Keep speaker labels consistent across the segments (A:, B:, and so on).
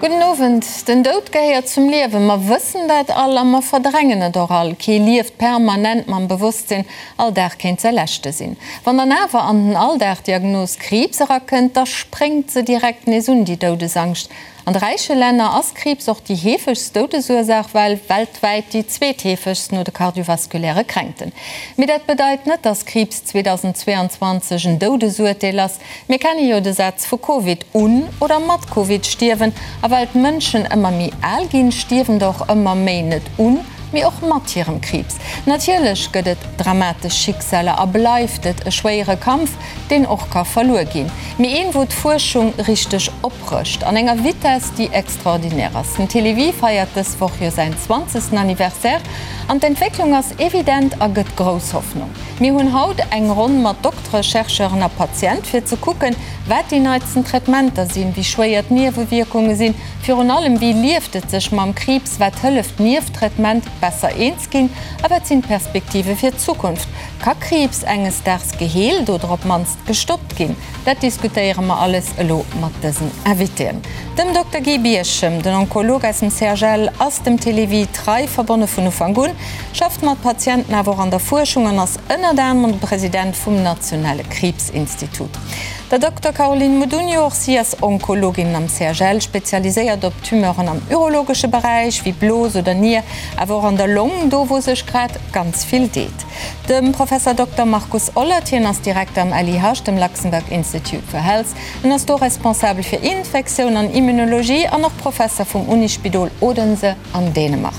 A: Gudden Owend. Den Doud gehéiert zum Liewen. Mer wëssen dat all a mer verdrängen et och all. Kee lieft permanent mam Bewosstsinn, all Dag kéint säi leschte sinn. Wann dann awer an den Alldag d'Diagnos Kriibs erakënnt, da spréngt se direkt nees un, déi Doudesangscht. An de räiche Länner ass Kriibs och déi heefegst Doudesursaach, well weltwäit déi zweetheefegst no de kardiovaskuläre Kränkten. Mee dat bedeit net, dass Kriibs 2022 en Doudesurteel ass. Mir kenne jo de Saz vu Covid, un oder mat Covid stierwen. A well d'Mënschen ëmmer méi al ginn, stierwen der och ëmmer méi net un, mee och mat hirem Kriibs. Natierlech gëtt et dramatesch Schicksaler a bleift et e schwéiere Kampf, deen och ka verluer ginn, mee een, wou d'Fuerschung richteg oprëscht, an enger Vitess, déi extraordinär ass. Den Télévie feiert dës Woch jo säin zwanzegsten Anniversaire an d'Entwécklung ass evident a gëtt grouss Hoffnung. Mir hunn haut eng Ronn mat Doktere, Chercheuren a Patient, fir ze kucken, wat déi neitsten Traitementer sinn, wéi schwéier d'Niewewierkunge sinn, virun allem, wéi lieft et sech mam Kriibs, wat hëlleft nieft Traitement besser eens ginn a wat sinn d'Perspektive fir d'Zukunft. Ka Kriibs enges Daags geheelt oder op d'mannst gestoppt ginn? Dat diskutéiere mer alles elo mat dësen Invitéen. Dem Dokter Guy Birchem, den Onkolog aus dem CHL, ass dem Télévie trei verbonne vun Ufank un, schafft mat Patienten awer och an der Fuerschung an ass ënnert anerem de President vum nationale Kriibsinstitut. Der Dokter Caroline Modugno, och si ass Onkologin am CHL, spezialiséiert op Tumeuren am urologesche Beräich, wéi Blos oder Nier, awer och an der Long, do wou sech grad ganz vill deet. Dem Professer Dokter Markus Ollert, hien ass Direkter am LIH, dem Luxembourg Institute for Health. En ass do responsabel fir Infektioun an Immunologie an och Professer vum Unispidol Odense an Dänemark.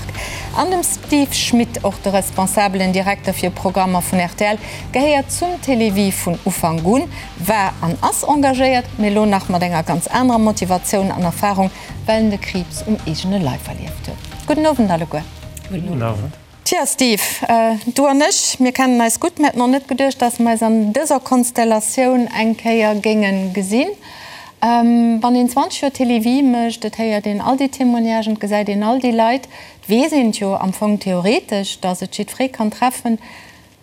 A: An dem Steve Schmit, och de responsabelen Direkter fir Programmer vun rtl, gehéiert zum Télévie vun Ufank un, war an ass engagéiert, mee elo nach mat enger ganz anerer Motivatioun an Erfarung, well en de Kriibs um eegene Leif erlieft huet. Gudden Owend alleguer.
B: Gudden Owend.
A: Tja Steve, du an ech, mir kennen eis gutt. Mir hätten och net geduecht, dass mer eis an dëser Konstellatioun eng Kéier géinge gesinn. Wann een 20 Joer Télévie mécht, et héiert een all déi Témoignagen, et gesäit een all déi Leit, et weess een et jo am Fong theoretesch, dass et jiddweree kann treffen,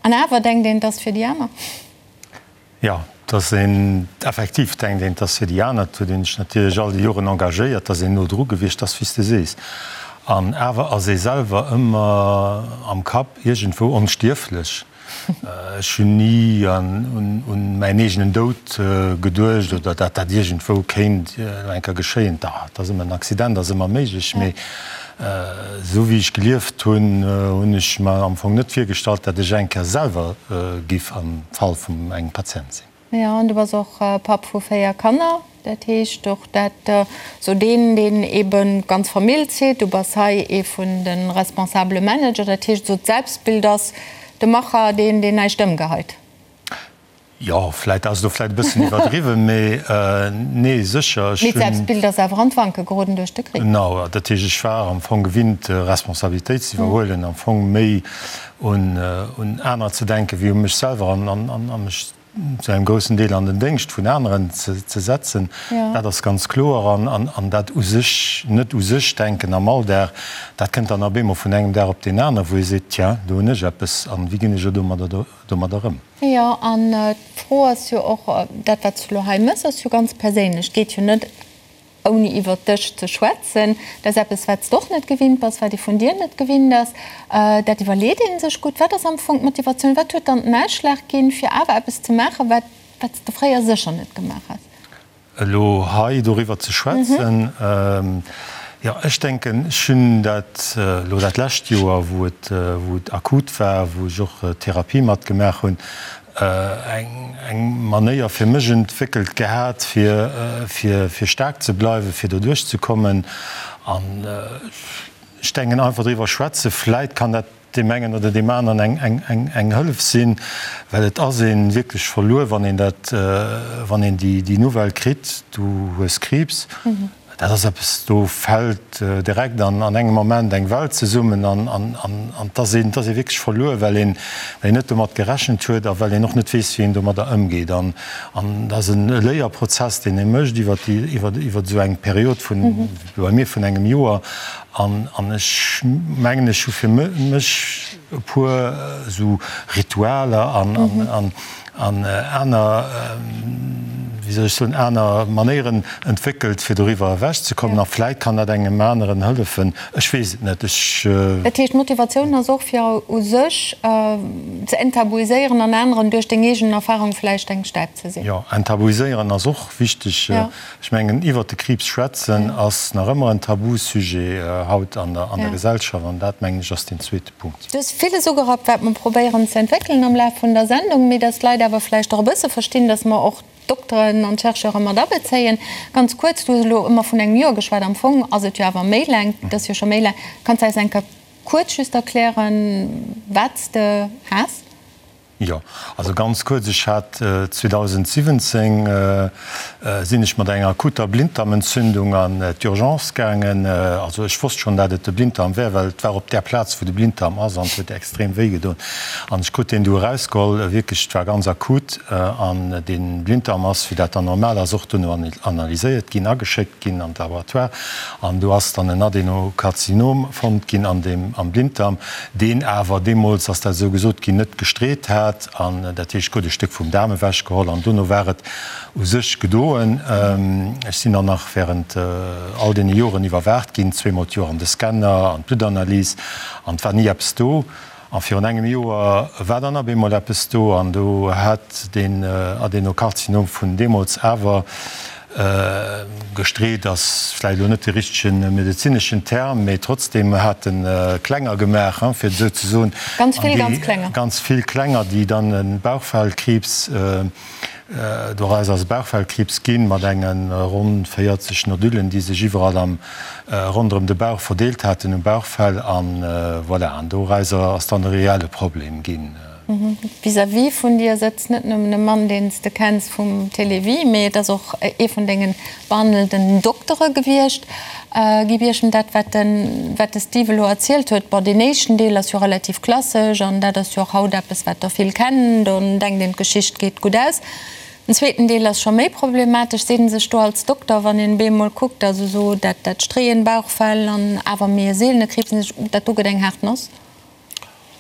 A: an awer denkt een, et ass fir déi aner.
B: Jo, dass een, effektiv denkt een, 't ass fir déi aner. Et huet een sech natierlech all déi Joren engagéiert, 't ass een no dru gewiescht, 't ass wéi s de sees. An awer ass ee selwer ëmmer am Kapp iergendwou onstierflech. Ech hunn ni un mäin eegenen Doud geduecht oder dat dat iergendwou kéint elo eng Kéier geschéien. Da, 't ass ëmmer, en Accident ass ëmmer méiglech, mee Esou wéi ech gelieft hunn, hunn ech mer am Fong net virgestallt, dat ech eng Kéier selwer giff am Fall vum engem Patient sinn.
A: Jo, an du bass och Papp vu 4 Kanner, dat heescht och dat sou deen, deen eben d'ganz Famill zitt. Du bass hei ee vun de responsabele Manager, dat heescht esou d'Selbstbild ass de Macher, deen, deen näischt ëmgeheit.
B: Jo, vläit ass elo vläit e bëssen iwwerdriwwen, mee nee, sécher.
A: Mee d'Selbstbild ass awer an d'Wanke geroden duerch de Krich.
B: Genau, dat heescht, ech war am Fong gewinnt, Responsabilitéit ze iwwerhuelen, am Fong méi un anerer ze denken, wéi u mech selwer an mech zu engem groussen Deel an den Déngscht vun aneren ze setzen. Dat ass ganz kloer. An dat u sech, net u sech denken am Alldag, dat kënnt dann op eemol vun engem Dag op deen aneren, wou ee seet, Tiens, do hunn ech eppes an wéi ginn ech elo domadder ëm?
A: Jo, an d'Fro ass jo och, dat wat s du elo hei méchs, ass jo ganz perséinlech. Et geet jo net ouni iwwert dech ze schwätzen. Dat ass eppes, wat s de och net gewinnt bass, wat ee vun dir net gewinnt ass. Dat iwwerleet ee sech gutt. Wat ass am Fong d'Motivatioun? Wat huet dann den Ausschlag ginn, fir awer eppes ze maachen, wat wat s de fréier sécher net gemaach häss?
B: Elo hei doriwwer ze schwätzen, jo, ech denken, ech hunn dat elo dat lescht Joer, wou et, wou et akut war, wou ech och Therapie matgemaach hunn, eng, eng Manéier fir mech entwéckelt gehat, fir, fir, fir staark ze bleiwen, fir doduerch ze kommen. An ech denken, einfach driwwer schwätzen, vläit kann dat deem engen oder deem aneren eng Hëllef sinn, well et ass ee wierklech verluer, wann een dat, wann een déi Nouvelle kritt, du hues Kriibs. Dat ass eppes, do fält direkt an engem Moment eng Welt zesummen an et ass een, et ass ee wierklech verluer, well een, well een net domat gerechent huet a well een och net weess, wéi een domadder ëmgeet. An dat ass e Léierprozess, deen ee mécht iwwer déi, iwwer, iwwer esou eng Period vun, bei mir vun engem Joer. An ech mengen, ech hu fir mech e puer esou Ritualer an aner. wéi soll ech soen, aner Manéieren entwéckelt, fir doriwwer ewechzekommen. A vläit kann dat engem aneren hëllefen. Ech weess et net. Ech.
A: Dat heescht, d'Motivatioun ass och, fir u sech ze enttabuiséieren an aneren duerch deng eegen Erfahrung vläicht eng Stäip ze sinn.
B: Jo, enttabuiséieren ass och wichteg. Ech mengen, iwwert de Kriibs schwätzen ass nach ëmmer en Tabusujet haut an der Gesellschaft. An dat, mengen ech, ass deen zweete Punkt.
A: Du hues villes ugerappt, wat mer probéieren ze entwéckelen am Laf vun der Sendung, mee dass d'Leit awer vläicht och e bësse verstinn, dass mer och d'Dokteren an d'Chercheure mat abezéien. Ganz kuerz, du hues elo ëmmer vun engem Joer geschwat, am Fong ass et jo awer méi laang, et ass jo scho méi laang. Kanns de eis eng Kéier kuerz just erklären, wat s de has?
B: Jo, also ganz kuerz, ech hat 2017 sinn ech mat enger akuter Blinddarmentzündung an d'Urgence gaangen. Also ech wosst schonn, dat et de Blinddarm wär, well et war op där Plaz, wou de Blinddarm ass an et huet extrem wéi gedoen. An ech krut deen du erausgeholl, wierklech, et war ganz akut. An dee Blinddarm ass, wéi dat dann normal ass, och duerno analyséiert ginn, ageschéckt ginn an d'Laboratoire. An do ass dann en Adenokarzinom fonnt ginn an deem, am Blinddarm. deen awer deemools, ass dat esou gesot ginn, net gestreet hat, an dat heescht, krut e Stéck vum Daarm ewechgeholl an dono war et u sech gedoen. Ech sinn dann nach während all deene Joren iwwerwaacht ginn, zweemol d'Joer an de Scanner, an d'Bluttanalyse, an et war ni eppes do. A virun engem Joer war dann op eemol eppes do, an do hat deen Adenokarzinom vun deemools awer Gestreet ass vläicht elo net de richtege medezineschen Term, mee trotzdem hat en Klenger gemaach, fir et esou ze soen.
A: Ganz vill ganz Klenger.
B: Ganz vill Klenger, déi dann e Bauchfellkriibs, doraus ass e Bauchfellkriibs ginn, mat enge ronn 40 Nodullen, déi sech iwwerall am ronderëm de Bauch verdeelt haten, um Bauchfell. An voilà, an dorauser ass dann e reelle Problem ginn.
A: Vis-à-vis vun dir sëtzt net nëmmen e Mann, deen s de kenns vum Télévie, mee et ass och ee vun denge behandelnden Doktere gewiescht. Guy Birchen, dat wat de wat de Steve elo erzielt huet, bon, deen éischten Deel ass jo relativ klassesch an dat ass jo och haut eppes, wat der vill kennen, do denkt een, d'Geschicht geet gutt aus. Den zweeten Deel ass scho méi problematesch, seet en sech do als Dokter, wann een bemol kuckt, also esou dat dat Streeën, Bauchfell an awer méi e seelene Kriibs, dat do gëtt eng haart Noss.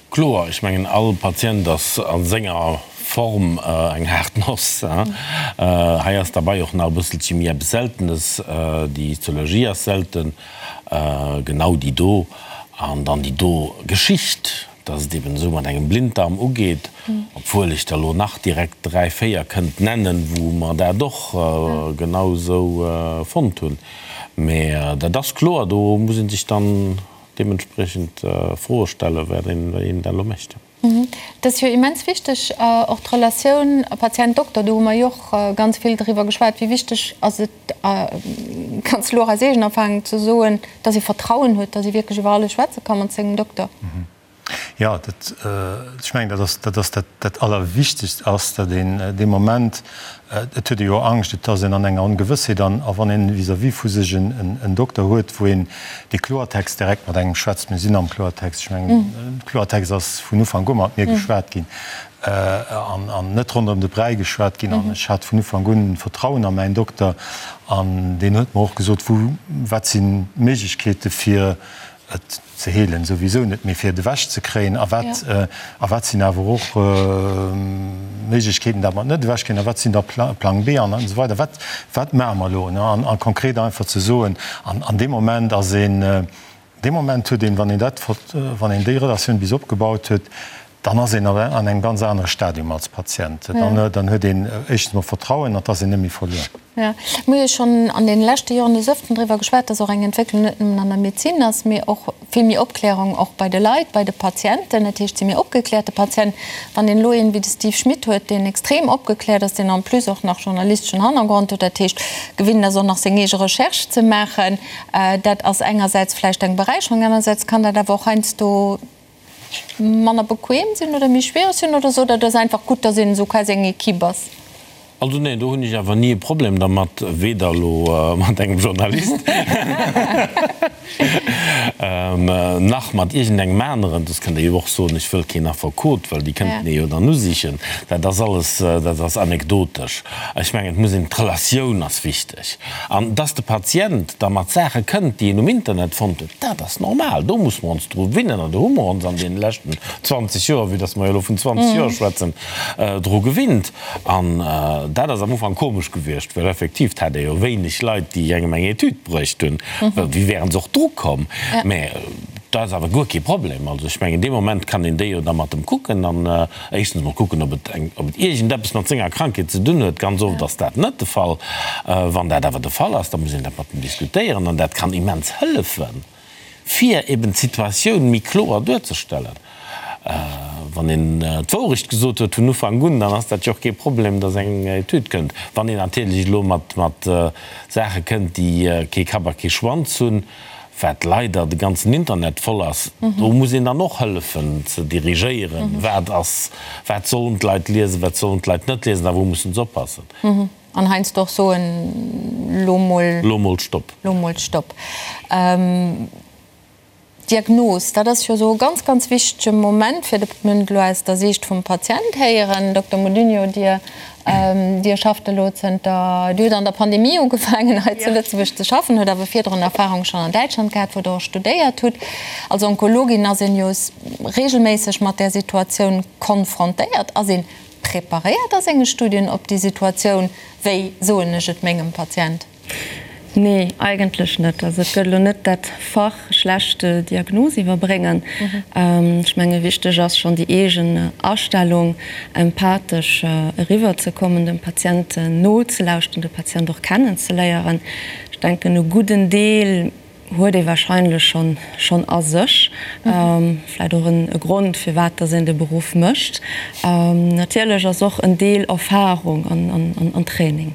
C: Kloer, ech mengen all Patient ass a senger Form eng haart Noss. Hei ass derbei och nach e bësselche méi eppes Seltenes, déi Histologie ass selten, genau déi do an dann déi do Geschicht, dass et eben esou mat engem Blinddarm ugeet, obwuel ech der elo nach direkt 3, 4 kënnt nennen, wou mer dat och genau esou fonnt hunn. Mä dat ass kloer, do muss ee sech dann deementspriechend Froe stellen, wat een da elo mécht.
A: Et ass jo immens wichteg, och d'Relatioun Patient-Dokter, do hu mer jo och ganz vill driwwer geschwat, wéi wichteg ass et, ganz elo och aus eegener Erfahrung ze soen, dass ee Vertrauen huet, dass ee wierklech iwwer alles schwätze ka mat sengem Dokter.
B: Jo, dat, ech mengen, dat ass, dat ass dat, dat Allerwichtegst ass, datt een dee Moment, et huet ee jo Angscht, et ass een an enger Ongewëssheet an a wann een vis-à-vis vu sech en Dokter huet, wou een dee Kloertext direkt mat engem schwätzt, mir sinn am Kloertext, ech mengen, Kloertext ass vun Ufank u mat mir geschwat ginn an an net ronderëm de Bräi geschwat ginn an ech hat vun Ufank un Vertrauen a mäin Dokter an deen huet mer och gesot, wou, wat sinn d'Méiglechkeete fir et ze heelen souwisou net, mee fir et ewech ze kréien a wat a wat sinn awer och Méiglechkeeten, dat mer et net ewech kréien a wat sinn da Plang B an esou weider. Wat wat maache mer elo? An a konkret einfach ze soen, an an deem Moment ass een, dee Moment huet een, wann een dat wann een déi Relatioun bis opgebaut huet, Dann ass een an engem ganz anere Stadium als Patient. Dann huet een éischtens mol Vertrauen an et ass een net méi verluer.
A: Jo, mir hu jo schonn an deene leschte Joren des Ëfteren driwwer geschwat, dass och eng Entwécklung net nëmmen an der Medezin ass, mee och vill méi Opklärung och bei de Leit, bei de Patienten. Dat heescht, et si méi opgekläerte Patienten. Wann een elo een wéi de Steve Schmit huet, deen extrem opgekläert ass, deen en plus och nach journalisteschen Hannergrond huet, dat heescht gewinnt ass och nach seng eege Recherche ze maachen, dat ass engersäits vläicht eng Beräicherung, anersäits kann dat awer och heiansdo manner bequem sinn oder méi schwiereg sinn oder sot der, et ass einfach gutt, dass een esou quasi eng Equipe ass?
C: Also neen, do hunn ech awer ni e Problem dermat, weder elo mat engem Journalist nach mat iergendengem aneren. Soss kënnt Der jo och soen, ech wëll keen Affekot, well déi kënnten ee jo dann usichen. Dat ass alles, dat ass anekdotesch. Ech mengen, et muss een, d'Relatioun ass wichteg. An dass de Patient da mat Saache kënnt, déi en um Internet fonnt huet, dat ass normal. Do musse mer ons dru winnen an do hu mer ons an deene leschten 20 Joer, vue dass mer jo elo vun 20 Joer schwätzen, dru gewinnt. An Dat ass am Ufank komesch gewiescht, well effektiv, 't hat ee jo wéineg Leit, déi engem eng Etüd bruecht hunn. Wéi wären se och dru komm? Mä dat ass awer guer kee Problem. Also ech mengen, dee Moment kann een déi jo da mat em kucken an éischtens emol kucken, ob et eng, ob et iergendeppes mat senger Krankheet ze dunn huet. Ganz oft ass dat net de Fall. Wann dat awer de Fall ass, da muss een dat mat em diskutéieren an dat kann immens hëllefen. fir eben d'Situatioun méi kloer duerzestellen. Wann een d'Wourecht gesot huet vun Ufank un, dann ass dat jo och kee Problem, datt eng Etüd kënnt. Wann een natierlech elo mat Saache kënnt, déi kee Kapp a kee Schwanz hunn, wat leider de ganzen Internet voll ass, do muss een dann och hëllefen ze dirigéieren, wat ass, wat sollen d'Leit liesen, wat sollen d'Leit net liesen a wou mussen se oppassen.
A: An heiansdo och soen, Lo mol.
C: Lo mol Stopp.
A: Lo mol Stopp. D'Diagnos, dat ass jo esou e ganz, ganz wichtege Moment, fir de, mir hunn et elo aus der Siicht vum Patient héieren. Dokter Modugno, Dir, Dir schafft elo zënter, Dir hutt an der Pandemie ugefaangen hei zu Lëtzebuerg ze schaffen, hutt awer virdrun Erfahrung schonn an Däitschland gehat, wou Der och studéiert hutt. Als Onkologin ass een jo regelméisseg mat där Situatioun konfrontéiert. Ass een Preparéiert a senge Studien op déi Situatioun? Wéi soen ech et mengem Patient?
D: Nee, eigentlech net. Also et gëtt elo net dat Fach schlecht Diagnos iwwerbréngen. Ech menge wichteg ass schonn déi eegen Astellung, empathesch eriwwer ze kommen, dem Patient nozelauschten, de Patient och kennenzeléieren. Ech denken e gudden Deel huet ee wahrscheinlech schonn schonn a sech. Vläit och en Grond firwat dass een de Beruff mécht. Natierlech ass och en Deel Erfahrung an Training.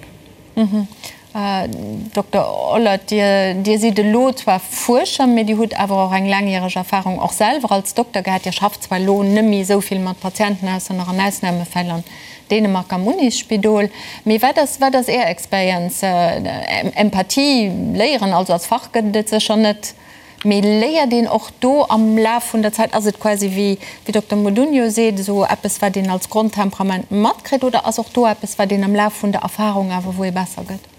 A: Dokter Ollert, Dir Dir sidd elo zwar Fuerscher, mee Dir hutt awer och eng laangjäreg Erfahrung och selwer als Dokter gehat. Dir schafft zwar elo net méi esou vill mat Patienten, ausser nach an Ausnahmefäll an Dänemark am Unisspidol. Mee wat ass, wat ass Är Experienz? Empathie léieren, also als Fach gëtt et et sécher net, mee léiert een och do am Laf vun der Zäit? Ass et quasi wéi wéi Dokter Modugno seet, esou eppes wat een als Grondtemperament matkritt oder ass och do eppes wat een am Laf vun der Erfahrung awer wou ee besser gëtt?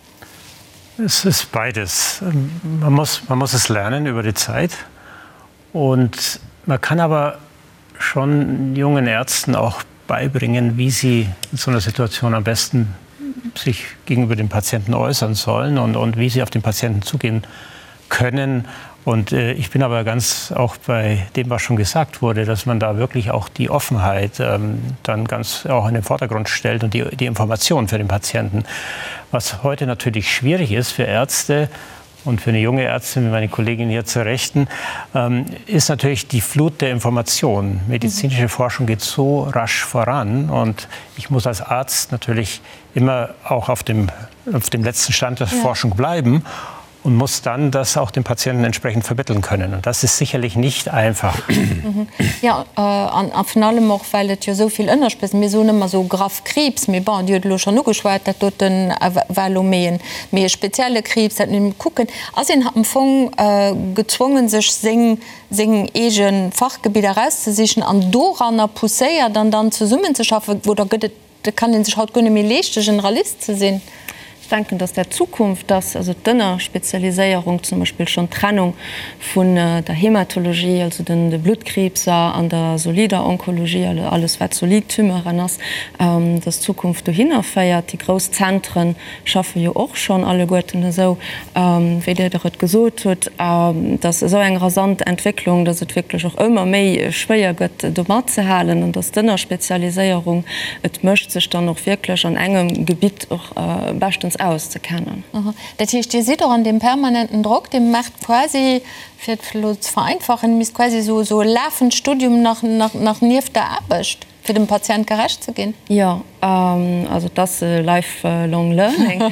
B: Es ist beides. Man muss, man muss es lernen über die Zeit und man kann aber schon jungen Ärzten auch beibringen, wie sie in so einer Situation am besten sich gegenüber dem Patienten äußern sollen und, und wie sie auf den Patienten zugehen können. Und äh, ich bin aber ganz auch bei dem, was schon gesagt wurde, dass man da wirklich auch die Offenheit ähm, dann ganz auch in den Vordergrund stellt und die, die Information für den Patienten. Was heute natürlich schwierig ist für Ärzte, und für eine junge Ärztin wie meine Kollegin hier zur Rechten, ähm, ist natürlich die Flut der Informationen. Medizinische mhm. Forschung geht so rasch voran und ich muss als Arzt natürlich immer auch auf dem, auf dem letzten Stand der ja. Forschung bleiben und muss dann das auch dem Patienten entsprechend vermitteln können. Und das ist sicherlich nicht einfach.
A: Mhm. Ja äh, an, an virun allem och, well et jo esou vill Ënnerspez-, mir soen ëmmer esou graff Kriibs, mee bon, Dir hutt elo schonn ugeschwat, dat doten war elo méi en, méi e spezielle Kriibs, dat mir kucken. Ass een am Fong gezwongen, sech seng, seng eege Fachgebidder erauszesichen an doranner pousséiert an dann zesummenzeschaffen, oder gëtt et Et kann ee sech haut guer net méi leeschte Generalist ze sinn.
D: Ech denken, dass dat d'Zukunft ass, also d'Ënnerspezialiséierung, zum Beispill schonn d'Trennung vun der Hematologie, also de Bluttkriibser, an der solider Onkologie, also alles wat solid Tumeuren ass, dass d'Zukunft dohinner féiert. Déi grouss Zentren schaffe jo och schonn alleguerten esou, wéi Dir et gesot hutt, dass esou eng rasant Entwécklung, dass et wierklech och ëmmer méi schwéier gëtt, do matzehalen an dass d'Ënnerspezialiséierung et mécht, sech dann och wierklech an engem Gebitt och beschtens auszekennen.
A: Dat heescht, Dir sidd och an deem permanenten Drock, Dir maacht quasi, fir et elo ze vereinfachen, Dir misst quasi esou e lafend Studium nach nieft der Aarbecht? Fir dem Patient gerecht ze ginn?
D: Jo, also et ass life long learning,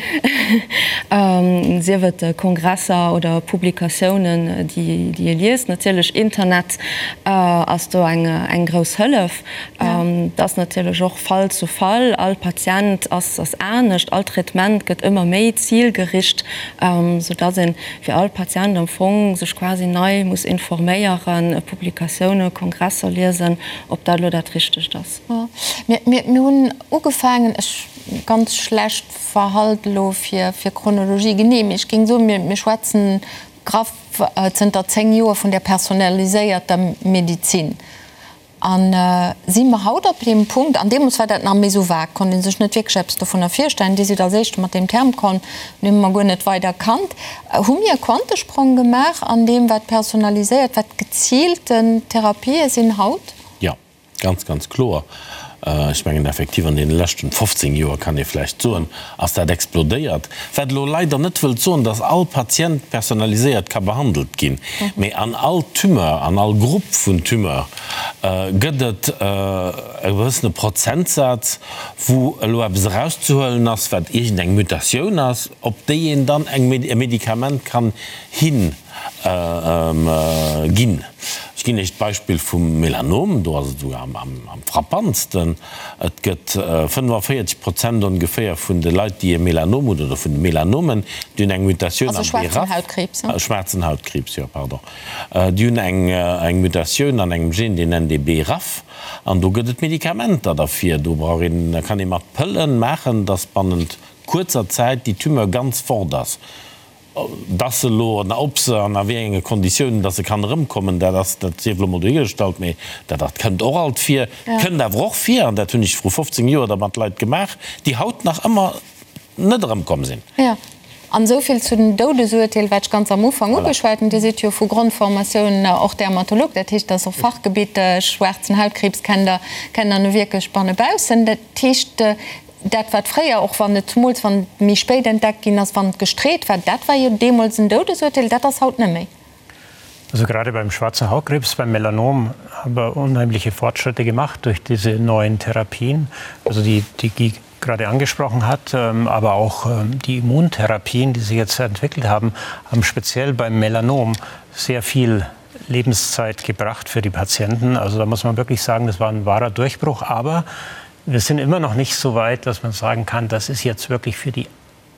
D: sief et Kongresser oder Publikatiounen, déi ee liest. Natierlech Internet ass do eng grouss Hëllef. Et ass natierlech och Fall zu Fall, all Patient ass anescht, all Traitement gëtt ëmmer méi zilgericht, soudass ee fir all Patient am Fong sech quasi nei muss informéieren, Publikatioune, Kongresser liesen. Ob dat elo dat Richtegt ass.
A: Mir hunn ugefaangen, ech ganz schlecht verhalt elo fir Chronologie genee, mee ech géing soen, mir schwätzen graff zënter 10 Joer vun där personaliséierter Medizin. A si mer haut op deem Punkt, an deemools war dat nach méi esou vag, konnt ee sech net wierklech eppes dovunner virstellen, Dir sidd als Éischte mat deem Term komm, deen hu mer guer net weider kannt, hu mir e Quantesprong gemaach an deem, wat personaliséiert, wat geziilten Therapië sinn haut?
C: Jo, ganz, ganz kloer. Ech mengen effektiv, an deene leschten 15 Joer, kann ee vläicht soen, ass dat explodéiert. Wat elo leider net wëllt soen, dass all Patient personaliséiert ka behandelt ginn, mee an all Tumeur, an all Grupp vun Tumeur gëtt et e gewëssene Prozentsaz, wou elo eppes erauszehuelen ass, wat iergendeng Mutatioun ass, op déi een dann eng e Medikament kann hin ginn. Ech ginn Iech d'Beispill vum Melanom, do ass et esouguer am frappantsten. Et gëtt 45 Prozent ongeféier vun de Leit, déi e Melanom hunn, oder vun de Melanomen, déi hunn eng Mutatioun am BRAF, schwaarzen Hautkriibs, jo, pardon, déi hunn eng Mutatioun an engem Gen, deen nennt ee BRAF, an do gëtt et Medikamenter derfir. Do brauch een, da kann ee mat Pëllen maachen, dass bannent kuerzer Zäit déi Tumeur ganz fort ass. Dass se elo, an ob se an a wéi enge Konditiounen dass se kann erëmkommen, dat ass, dat sief elo mol dohigestallt, mee dat, dat kënnt och alt vir. Et kënnt awer och vir, an dat hunn ech vru 15 Joer da mat Leit gemaach, déi haut nach ëmmer net erëmkomm sinn.
A: Jo, an esou vill zu den Doudesurteel, wat ech ganz am Ufank ugeschwat hunn. Dir sidd jo vu Grondformatioun och Dermatolog, dat heescht, dat ass och Fachgebitt, schwaarzen Hautkriibs kennt Der, kennt Der nu wierklech bannebaussen. Dat heescht, Dat wat fréier, och wann et zemools wann et méi spéit entdeckt ginn ass, wann et gestreet war, dat war jo deemools en Doudesurteel, dat ass haut net méi.
E: Also gerade beim schwarzen Hautkrebs, beim Melanom haben wir unheimliche Fortschritte gemacht durch diese neuen Therapien, also die, die Guy gerade angesprochen hat, aber auch die Immuntherapien, die sich jetzt entwickelt haben, haben speziell beim Melanom sehr viel Lebenszeit gebracht für die Patienten. Also da muss man wirklich sagen, das war ein wahrer Durchbruch, aber wir sind immer noch nicht so weit, dass man sagen kann, das ist jetzt wirklich für die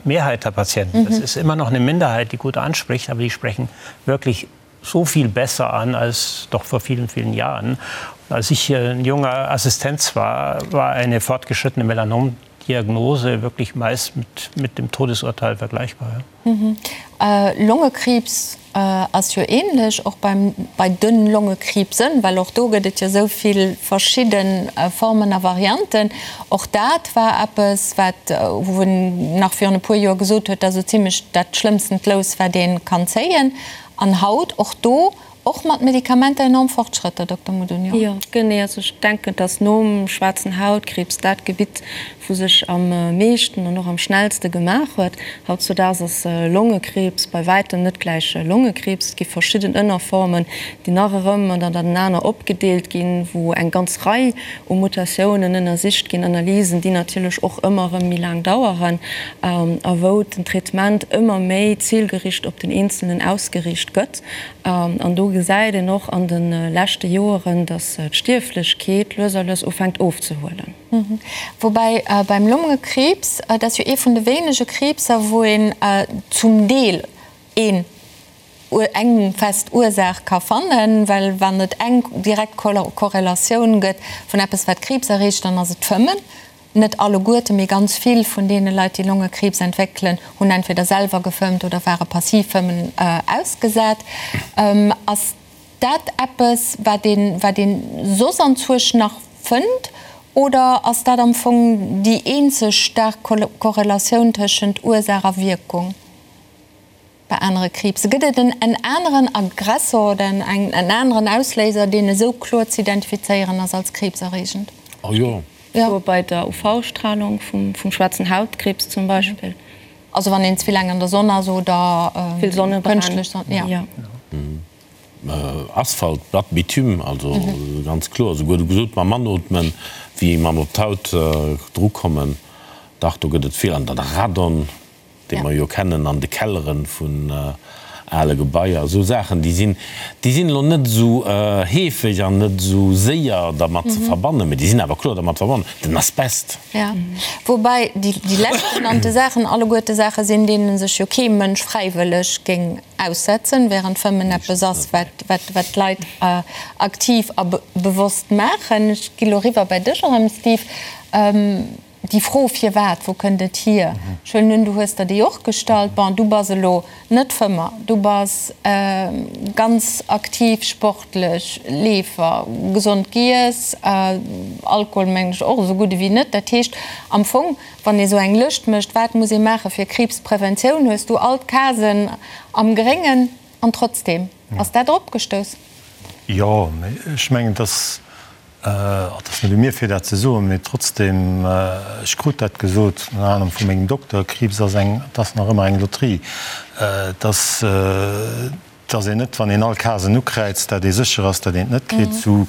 E: Mehrheit der Patienten. Mhm. Das ist immer noch eine Minderheit, die gut anspricht, aber die sprechen wirklich so viel besser an als doch vor vielen, vielen Jahren. Und als ich ein junger Assistenz war, war eine fortgeschrittene Melanomdiagnose wirklich meist mit, mit dem Todesurteil vergleichbar. Ja.
A: Longekriibs ass jo ähnlech, och beim bei den Longekriibsen, well och do gëtt et jo esou vill verschidde Formen a Varianten. Och dat war eppes, wat wou en nach virun e puer Joer gesot huet, dat ass esou zimlech dat schlëmmstent Lous, wat ee kann zéien. An haut och do Och mat Medikamenter enorm Fortschrëtter, Dokter Mudunio.
D: Jo, genee. Also ech denken, dass nom schwaarzen Hautkriibs dat Gebitt, wou sech am meeschten an och am schnellste gemaach huet. Hautzudaags ass Longekriibs bei wäitem net gläich Longekriibs. Et gi verschidden Ënnerformen, déi nach erëm ënnertenaner opgedeelt ginn, wou eng ganz Rei u Mutatiounen ënnersicht ginn, Analysen, déi natierlech och ëmmer erëm méi laang daueren a wou den Traitement ëmmer méi zilgericht op den Eenzelnen ausgeriicht gëtt. An do gesäit een och an de leschte Joeren, datt d'Stierflechkeet lues a lues ufänkt ofzehuelen.
A: Woubäi beim Longekriibs, dat ass jo ee vun de wéinege Kriibser, wou een zum Deel een eng fest Ursaach ka fannen, well wann et eng direkt Korrelatioun gëtt vun eppes wat Kriibs erreegt, dann ass et d'Fëmmen. Net alleguerte, mee ganz vill vun deene Leit, déi Longekriibs entwéckelen, hunn entweder selwer gefëmmt oder ware passiv Fëmmen ausgesat. Ass dat eppes, wat een, wat een soss anzwuesch nach fënnt, oder ass dat am Fong déi eenzeg staark Korrelatioun tëschent Ursaach a Wierkung? Bei anere Kriibse gëtt et en aneren Aggressor oder en aneren Ausléiser, deen esou kloer ze identifizéieren ass als kriibserreegend.
C: Oh jo.
D: Jo, bei der UV-Stralung vum schwaarzen Hautkriibs zum Beispill.
A: Also wann een ze vill laang an der Sonn ass oder kënschtlech Sonn, jo.
C: Asphalt, Blatt, Bitume, also ganz kloer. Esouguer gesot mam Anootmen, wéi mam op d'Haut drukommen, dach do gëtt et vill. An dann Radon. dee mer jo kennen an de Kellere vun ale Gebaier, esou Saachen, déi sinn, déi sinn elo net esou heefeg an net esou séier dermat ze verbannen, mä déi sinn awer kloer dermat verbonnen. Den Asbest.
A: Jo, woubäi déi leschtgenannte Saachen alleguerte Saache sinn, deene sech jo kee Mënsch fräiwëlleg géing aussetzen, während Fëmmen eppes ass, wat, wat, wat d'Leit aktiv a bewosst maachen. Ech gi lo eriwwer bei dech erëm, Steve. Déi Fro firwat, wou kënnt et hier? Ech huelen un, du hues der déi och gestallt. Bon, du bass elo net Fëmmer, du bass ganz aktiv sportlech, Leefer, gesond giess, Alkohol mengen ech och esou gutt ewéi net. Dat heescht am Fong, wann ee sou eng Lëscht mécht, wat muss ee maache fir Kriibspreventioun, hues du all d'Casen am Gréngen an trotzdeem ass dat eropgestouss.
B: Jo, mee ech mengen, dass Et ass net u mir fir dat ze soen, mee trotzdem, ech krut dat gesot, ënner anerem vu mengem Dokter, Kriibs ass eng, et ass nach ëmmer eng Lotterie. Et ass, et ass een net, wann een all Casen ukräizt, dat ee sécher ass, dat een et net kritt, sou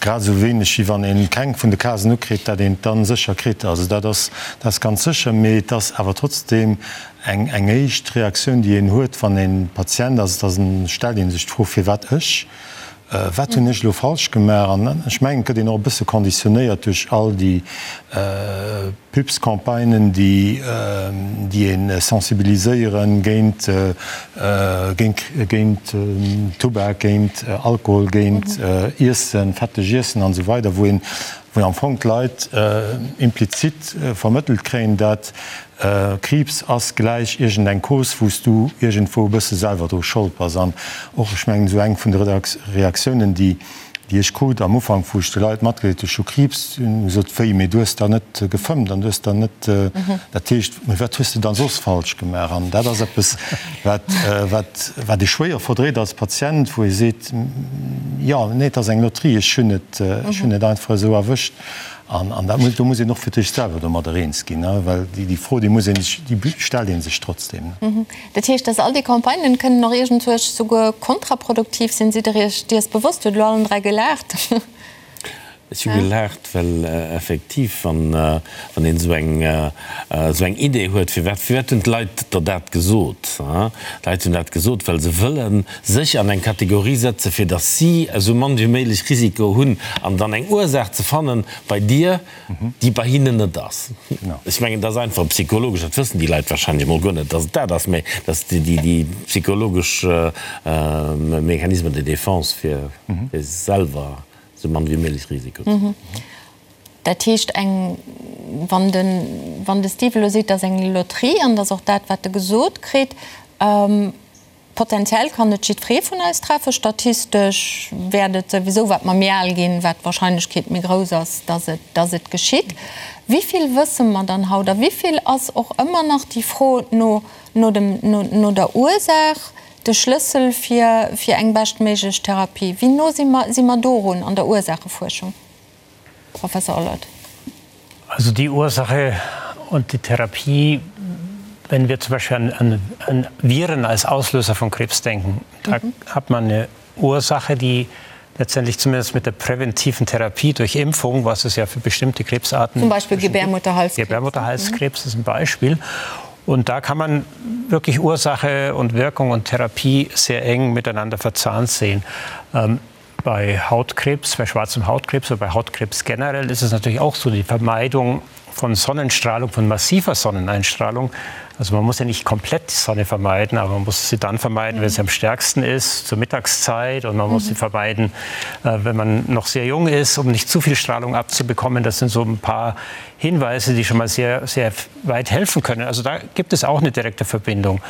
B: grad esou wéineg wéi wann een keng vun de Casen ukritt, dat een et dann sécher kritt. Also dat ass, dat ass ganz sécher, mee et ass awer trotzdem eng, eng éischt Reaktioun, déi een huet, wann een Patient ass, et ass en, stellt ee sech d'Fro, firwat ech? Wat hunn ech elo falsch gemaach? An ech mengen, et gëtt een och e bësse conditionnéiert duerch all déi Pubscampagnen, déi déi ee sensibiliséiere géint, géint, géint Tubak, géint Alkohol, géint Iessen, fetteg Iessen an esou weider, wou een, wou am Fong d'Leit implizit vermëttelt kréien, dat Kriibs ass gläich iergendeng Cause, wou s du iergendwou e bësse selwer dru Schold bass. An och, ech mengen, esou eng vun de Reaktiounen, déi ech krut am Ufank, wou ech de Leit matgedeelt hunn, ech hu Kriibs, hunn gesot, Wéi, mee du hues da net gefëmmt an du hues da net, dat heescht, mee wat hues de dann soss falsch gemaach? An dat ass eppes, wat, wat, wat ee schwéier verdréit als Patient, wou ee seet, Jo, nee, et ass eng Lotterie, ech hunn et, ech hunn et einfach esou erwëscht. An, an dat muss, do muss een och fir d'éischt selwer domadder eens ginn, ne, well déi, déi Fro, déi muss ee sech, déi stellt ee sech trotzdem.
A: Dat heescht, dass all déi Campagnen kënnen och iergendwuerch souguer kontraproduktiv sinn. Sidd Der Iech dees bewosst? Hutt elo allen 3 gelaacht.
C: Ech hu gelaacht, well effektiv, wann, wann een esou eng, esou eng Idee huet, firwat, firwat hunn d'Leit der dat gesot? D'Leit hunn dat gesot, well se wëllen sech an eng Kategorie setze fir datt si esou mann wéi méiglech Risiko hunn an dann eng Ursaach ze fannen bei dir, déi bei hinnen net ass. Ech mengen, dat ass einfach psychologesch, dat wëssen déi Leit wahrscheinlech emol guer net, datt et dat ass, mä dat ass déi psychologesch Mécanisme de défense fir selwer esou mann wéi méiglech Risiko ze hunn.
A: Dat heescht eng, wann de, wann de Steve elo seet, dat ass eng Lotterie an dat ass och dat wat e gesot kritt, Potenziell kann et jiddweree vun eis treffen. Statistesch wäert et souwisou, wat mer méi al ginn, wat d'Warscheinlechkeet méi grouss ass, dass et, dass et geschitt. Wéi vill wësse mer dann haut a wéi vill ass och ëmmer nach déi Fro no, no dem, no, no der Ursaach de Schlëssel fir, fir eng beschtméiglech Therapie? Wéi no si mer, si mer dorun an der Ursaachefuerschung? Professor Ollert.
E: Also die Ursache und die Therapie, wenn wir zum Beispiel an, an, an Viren als Auslöser von Krebs denken, da mhm. hat man eine Ursache, die letztendlich zumindest mit der präventiven Therapie durch Impfung, was es ja für bestimmte Krebsarten
A: zum Beispiel Gebärmutterhalskrebs,
E: Gebärmutterhalskrebs mhm. ist ein Beispiel. Und da kann man wirklich Ursache und Wirkung und Therapie sehr eng miteinander verzahnt sehen. Ähm, bei Hautkrebs, bei schwarzem Hautkrebs oder bei Hautkrebs generell ist es natürlich auch so, die Vermeidung von Sonnenstrahlung, von massiver Sonneneinstrahlung. Also man muss ja nicht komplett die Sonne vermeiden, aber man muss sie dann vermeiden, wenn sie am stärksten ist, zur Mittagszeit. Und man muss mhm. sie vermeiden, äh, wenn man noch sehr jung ist, um nicht zu viel Strahlung abzubekommen. Das sind so ein paar Hinweise, die schon mal sehr, sehr weit helfen können. Also da gibt es auch eine direkte Verbindung.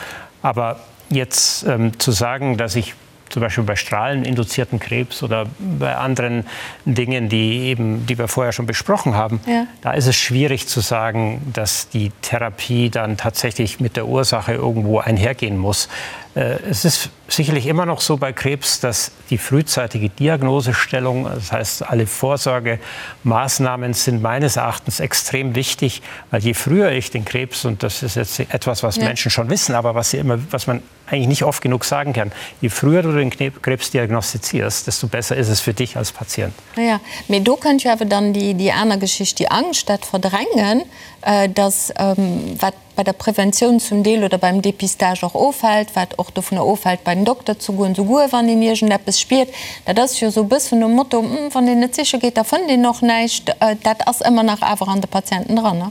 E: Aber jetzt ähm, zu sagen, dass ich zum Beispiel bei strahleninduzierten Krebs oder bei anderen Dingen, die eben, die wir vorher schon besprochen haben, ja. da ist es schwierig zu sagen, dass die Therapie dann tatsächlich mit der Ursache irgendwo einhergehen muss. Äh, es ist sicherlich immer noch so bei Krebs, dass die frühzeitige Diagnosestellung, das heißt alle Vorsorgemaßnahmen sind meines Erachtens extrem wichtig, weil je früher ich den Krebs und das ist jetzt etwas, was ja. Menschen schon wissen, aber was sie immer, was man eigentlich nicht oft genug sagen kann. Je früher du den Krebs diagnostizierst, desto besser ist es für dich als Patient.
A: Ja, mee do kënnt jo awer dann déi, déi aner Geschicht, déi Angscht, dat Verdrängen, dass, wat bei der Preventioun zum Deel oder beim Dépistage och ofhält, wat och dovunner ofhält, bei den Dokter ze goen, souguer wann een iergendeppes spiert. Dat ass jo esou e bëssen nom Motto, Wann een net siche geet, da fënnt een och näischt. Dat ass ëmmer nach awer an de Patienten dran, ne?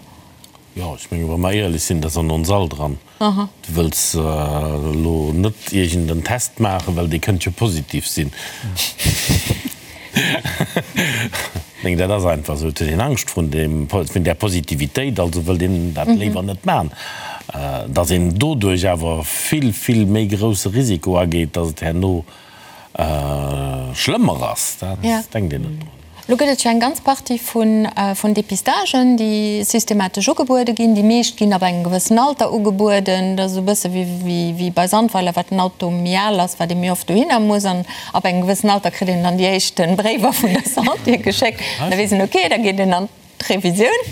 C: Jo, ech menge wa mer éierlech sinn, dat ass an ons all dran. Du wëlls elo net iergend en Test maachen, well dee kënnt jo positiv sinn. Meng dat ass einfach esou, et huet een Angscht vrun deem, vun där Positivitéit, also wëllt een dat léiwer net man. Datt een doduerch awer vill, vill méi grousse Risiko ageet, datt et herno schlëmmer ass, dat denkt een net drun.
A: Elo gëtt et jo eng ganz Partie vun Depistagen, déi systematesch ugebuede ginn. Déi meescht ginn ab engem gewëssen Alter ugebueden. Dat ass esou e bësse wéi bei Sandweiler, wat den Auto méi al ass, wat ee méi oft dohinner muss. An ab engem gewëssen Alter kritt een dann déi éischte Bréiwer vun der Santé geschéckt. Da weess een, okay, da geet een an d'Revisioun.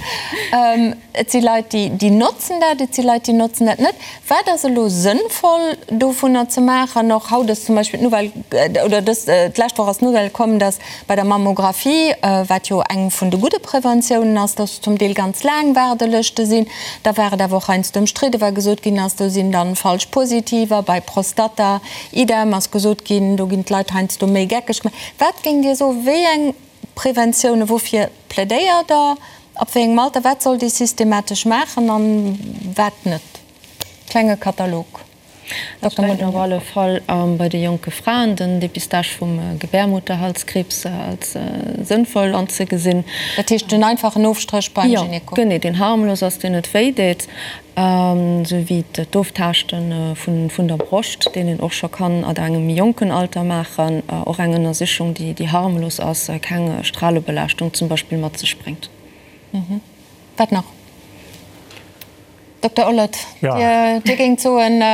A: Et si Leit, déi notzen dat, et si Leit, déi notzen dat net. Wat ass elo sënnvoll dovunner ze maachen? Och haut ass zum Beispill d'Nouvelle, oder dës, d'lescht Woch ass d'Nouvelle komm, dass bei der Mammographie, wat jo eng vun de gudde Preventiounen ass, dass zum Deel ganz laang Waardelëschte sinn. Da war et awer och heiansdo ëmstridde, well gesot ginn ass, do sinn dann falsch Positiver. Bei Prostata, idem, ass gesot ginn, do ginn d'Leit heiansdo méi geckeg gemaach. Wat géingt Dir soen, wéi eng Preventiounen, woufir plädéiert Der? Ab wéi engem Alter? Wat sollt ee systematesch maachen an wat net? Klenge Katalog.
D: Ech denken op alle Fall bei de jonke Fraen den Dépistage vum Gebärmutterhalskriibs als sënnvoll anzegesinn.
A: Dat heescht den einfachen Ofstréch beim Gyneko?
D: Jo, genee, deen harmlos ass, deen net wéi deet. Esou wéi d'Oftaaschte vun der Broscht, deen een och scho kann at engem méi jonken Alter maachen, och eng Ënnersichung, déi harmlos ass, keng Stralebelaaschtung zum Beispill mat sech bréngt.
A: Wat nach? Dokter Ollert, Dir géingt soen,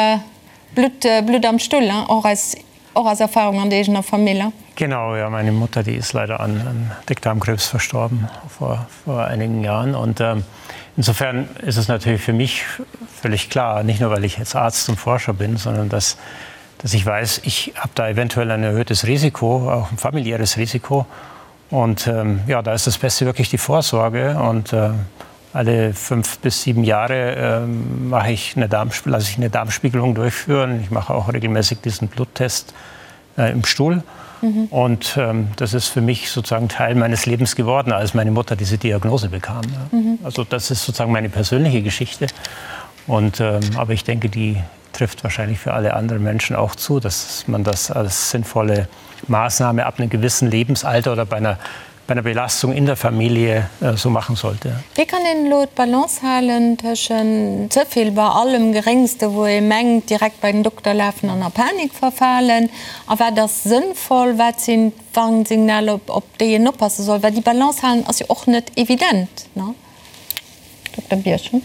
A: Blutt am Stull, och eis Och aus Erfahrung an der eegener Famill?
E: Genau, ja, meine Mutter, die ist leider an, an Dickdarmkrebs verstorben vor, vor einigen Jahren. Und ähm, insofern ist es natürlich für mich völlig klar, nicht nur weil ich jetzt Arzt und Forscher bin, sondern dass, dass ich weiß, ich habe da eventuell ein erhöhtes Risiko, auch ein familiäres Risiko. Und ähm, ja, da ist das Beste wirklich die Vorsorge. Und äh, alle fünf bis sieben Jahre äh, mache ich eine Darm, lasse ich eine Darmspiegelung durchführen. Ich mache auch regelmäßig diesen Bluttest äh, im Stuhl. Mhm. Und ähm, das ist für mich sozusagen Teil meines Lebens geworden, als meine Mutter diese Diagnose bekam. Mhm. Also das ist sozusagen meine persönliche Geschichte. Und, ähm, aber ich denke, die trifft wahrscheinlich für alle anderen Menschen auch zu, dass man das als sinnvolle Maßnahme ab einem gewissen Lebensalter oder bei einer bei einer Belastung in der Familie äh, so machen sollte.
A: Wéi kann een elo d'Balance halen tëschent ze vill bei allem Geréngste, wou ee mengt, direkt bei den Dokter lafen an a Panik verfalen, a wat ass sënnvoll, wat sinn d'Warnsignaler, op déi een oppasse soll? Well déi Balance halen ass jo och net evident, ne? Dokter Birchen.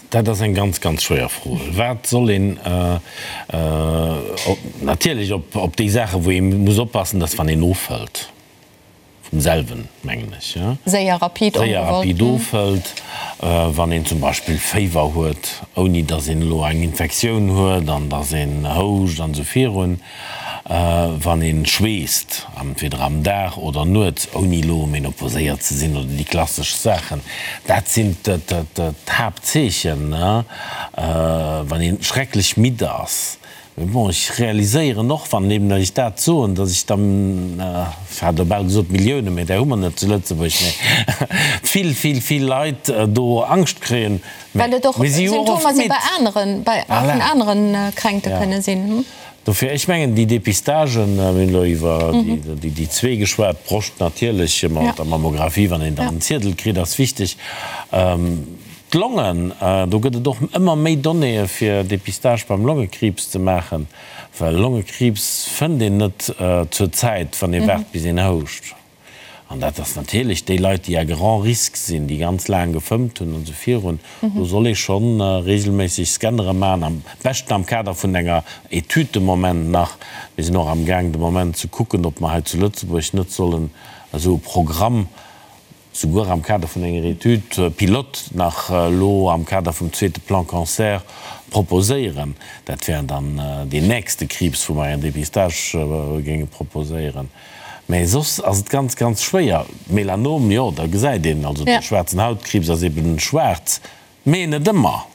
C: Dat ass eng ganz, ganz schwéier Fro. Wat soll een natierlech op déi Saachen, wou ee muss oppassen, dass wann een ofhëlt, vum selwen, mengen ech,
A: séier rapid
C: séier rapid ofhëlt, wann een zum Beispill Féiwer huet, ouni dass een elo eng Infektioun huet an dass een houscht an esou virun. Wann een schweesst, entweder am Dag oder nuets, ouni elo menoposéiert ze sinn oder déi klassesch Saachen, dat sinn d'Haaptzeechen. Wann een schrecklech midd ass. Mee bon, ech realiséieren och, wann eben ech dat soen, datt ech dann, ech hat elo bal gesot Milliounen, mee där hu mer net zu Lëtzebuerg, mee vill, vill, vill Leit do Angscht kréien.
A: Well et och Symptomer si bei aneren, bei vun aneren Kränkte kënne sinn.
C: Dofir, ech mengen, déi Depistagen, mir hunn elo iwwer déi zwee geschwat, d'Broscht natierlech mat der Mammographie, wann een dann en Ziedel kritt, ass wichteg. D'Longen, do gëtt et och ëmmer méi Donnéeë fir Depistage beim Longekriibs ze maachen, well Longekriibs fënnt een net zur Zäit, wann ee waart bis een houscht. An dat ass natierlech déi Leit, déi à grand risque sinn, déi ganz laang gefëmmt hunn an esou virun, do soll ee scho regelméisseg Scannere maachen, am beschten am Kader vun enger Etüd de Moment nach. Mir sinn och amgaang de Moment ze kucken, ob mer hei zu Lëtzebuerg net sollen esou e Programm, souguer am Kader vun enger Étude pilote nach elo am Kader vum zweete Plan Cancer proposéieren. Dat wär dann deen nächste Kriibs, wou mer en Dépistage géinge proposéieren. Mä soss ass et ganz, ganz schwéier. Melanom, jo, da gesäit een, also de schwaarzen Hautkriibs ass eben schwaarz, mee net ëmmer.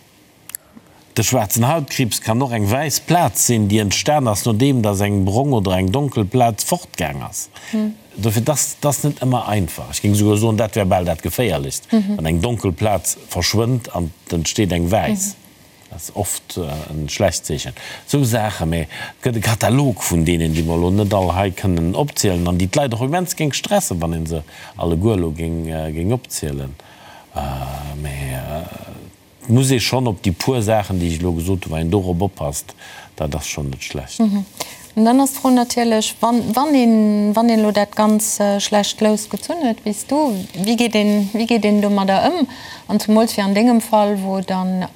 C: De schwaarzen Hautkriibs kann och eng wäiss Plaz sinn, déi entstan ass, nodeem dass eng brong oder eng donkel Plaz fortgaang ass. Dofir, dass ass net ëmmer einfach. Ech géing esouguer soen, dat wär bal dat Geféierlechst, wann eng donkel Plaz verschwënnt an et entsteet eng wäiss. Dat ass oft e schlecht Zeechen. Esou Saachen, mä et gëtt e Katalog vun deenen, déi mer elo net all hei kënnen opzielen an déi d'Leit och immens géing stressen, wann ee se alleguer elo géing opzielen. Mä et muss ee schonn op déi puer Saachen, déi ech elo gesot hunn, wann een dorop oppasst, dat ass schonn net schlecht.
A: An dann ass d'Fro natierlech, wann, wann een, wann een elo dat ganz schlecht Lous gezunn huet, wéi s du, wéi geet een, wéi geet een domadder ëm? An zemools wéi an dengem Fall, wou dann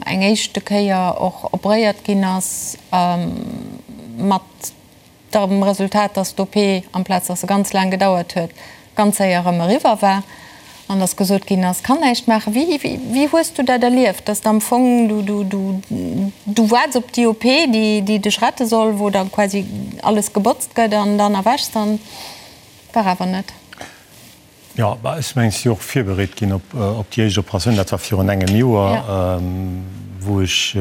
A: eng éischte Kéier och operéiert ginn ass, mat dem Resultat, dass d'OP, amplaz dass se ganz laang gedauert huet, ganz séier erëm eriwwer war an dass gesot ginn ass, kann näischt maachen. Wéi, wéi hues du dat erlieft, dass am Fong du, du, du, du waarts op déi OP, déi, déi dech rette soll, wou da quasi alles gebotzt gëtt an dann erwächs an war awer net?
B: Jo, bah, ech mengen, ech si och virbereet ginn op, op déi éischt Operatioun. Dat war virun engem Joer, wou ech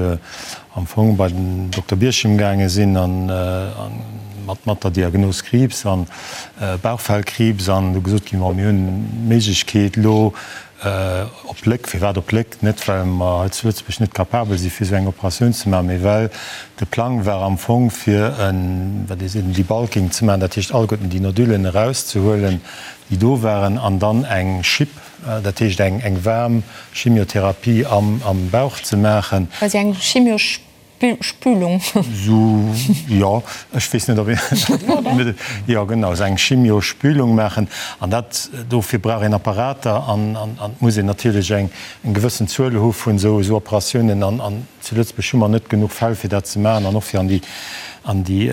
B: am Fong bei den Dokter Birchim gaange sinn an, an mat, mat der Diagnos Kriibs an Bauchfellkriibs an du gesot ginn, bon, mir hunn d'Méiglechkeet elo op Léck, firwat op Léck? Net well mer hei zu Lëtzebuerg net capabel si fir esou eng Operatioun ze maachen, mee well de Plang war am Fong fir en, wat ee seet, en Debulking ze maachen, dat heescht alleguerten déi Nodulen erauszehuelen, déi do waren, an dann eng Chip, dat heescht eng waarm Chimiotherapie am Bauch ze maachen.
A: Quasi eng Chimiospülung. Spülung.
B: Sou, jo, ech weess net, ob een, jo genau, esou eng Chimiospülung maachen. An dat, dofir brauch een Apparater an an et muss een natierlech eng gewëssen Zuel hu vun esou esou Operatiounen. An an zu Lëtzebuerg hu mer net genuch Fäll, fir dat ze maachen an och fir an déi an déi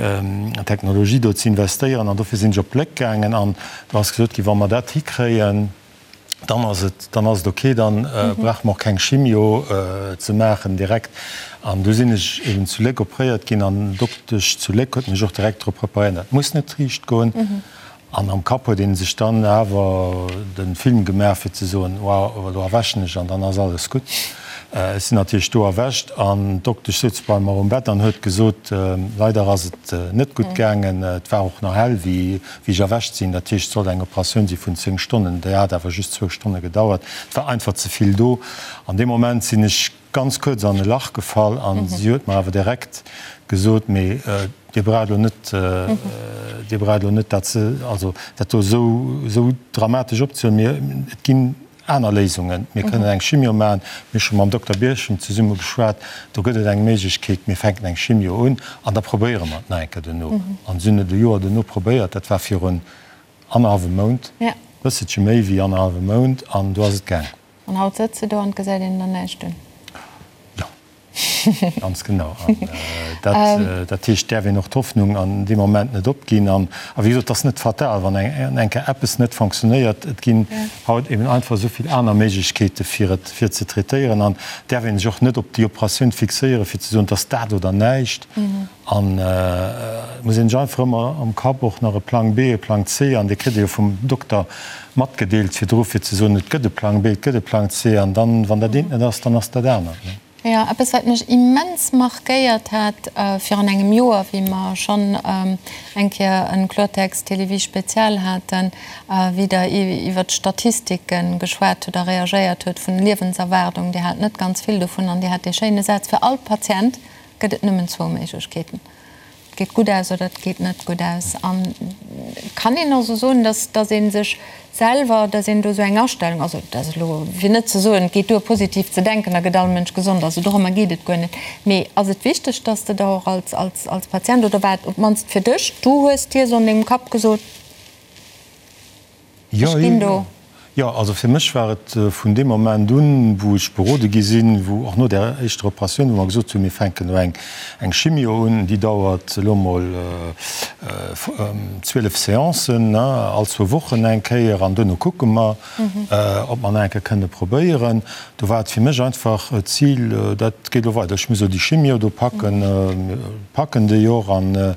B: Technologie do ze investéieren. An dofir sinn ech op Léck gaangen an do ass gesot ginn, wa mer dat hikréien, dann ass et, dann ass et ok, dann brauche mer och keng Chimio ze maachen direkt. An du sinn ech eben zu Léck opréiert ginn an d'Doktesch zu Léck huet mech och direkt drop preparéiert, dat muss net riicht goen. An am Kapp huet ee sech dann awer de Film gemaach fir ze soen, wow, elo erwächen ech an dann ass alles gutt. Ech sinn natierlech do erwächt an d'Doktesch souz bei mer um Bett an huet gesot, leider ass et net gutt gaangen, et war och nach hell wéi Wéi ech erwächt sinn, dat heescht, et sollt eng Operatioun si vun 10 Stonnen, déi hat awer just zwou Stonne gedauert, et war einfach ze vill do. An deem Moment sinn ech ganz kuerz an e Lach gefall an si huet mer awer direkt gesot, mee Dir braucht elo net, Dir braucht elo net dat ze, also dat do esou, esou dramatesch opzehuelen, mir, et ginn Aner Léisungen, Mir kënnen eng Chimio maachen. Mir hu scho mam Dokter Birchen zesumme geschwat. Do gëtt et eng Méiglechkeet. Mir fänken eng Chimio un an da probéiere mer et nach eng Kéier duerno. An si hunn et e Joer duerno probéiert. Dat war virun annerhallwem Mount, e bësselche méi wéi annerhallwem Mount, an do ass et gaang.
A: An haut sëtz de do an et gesäit een der näischt un.
B: Jo. Ganz genau. An dat, dat heescht, däerf een och d'Hoffnung an deem Moment net opginn. An, a wéi gesot, et ass net fatal, wann eng, eng Kéier eppes net fonctionnéiert. Et ginn haut eben einfach esou vill aner Méiglechkeete fir et, fir et ze traitéieren. An däerf ee sech och net op déi Operatioun fixéieren, fir ze soen, et ass dat oder näischt. An et muss een sech einfach ëmmer am Kapp och nach e Plang B, e Plang C, an dee kritt ee jo vum Dokter matgedeelt virdru, fir ze soen, et gëtt e Plang B, et gëtt e Plang C, an dann, wann dat eent net ass, dann ass dat anert.
A: Jo, eppes wat mech immens markéiert hat virun engem Joer, wéi mer schonn eng Kéier en Kloertext Télévie Spezial haten, wéi Der iwwert d'Statistike geschwat hutt a reagéiert hutt vun Liewenserwaardung, Dir hat net ganz vill dovun an Dir hat dee schéine Saz, Fir all Patient gëtt et nëmmen zwou Méiglechkeeten, et geet gutt aus oder et geet net gutt aus. An kann een also soen, dass, dass ee sech selwer, dass een do esou eng Astellung, also dat ass elo fir net ze soen, et geet duer positiv ze denken, da gëtt all Mënsch gesond, also dorëmmer geet et guer net, mee ass et wichteg, dass de der och als, als, als Patient, oder war et op d'mannst fir dech, du hues dir esou an dengem Kapp gesot,
B: Ech ginn do. Jo, also fir mech war et vun deem Moment un, wou ech berode gi sinn, wou och no där éischter Operatioun, wou mer gesot hunn, mir fänken elo eng Chimio un, déi dauert elo mol 12 Seancen, all zwou Wochen eng Kéier, an duerno kucke mer, ob mer nach eng Kéier kënne probéieren. Do war et fir mech einfach d'Zil, dat geet elo weider, ech muss elo déi Chimio do packen, packen déi och, an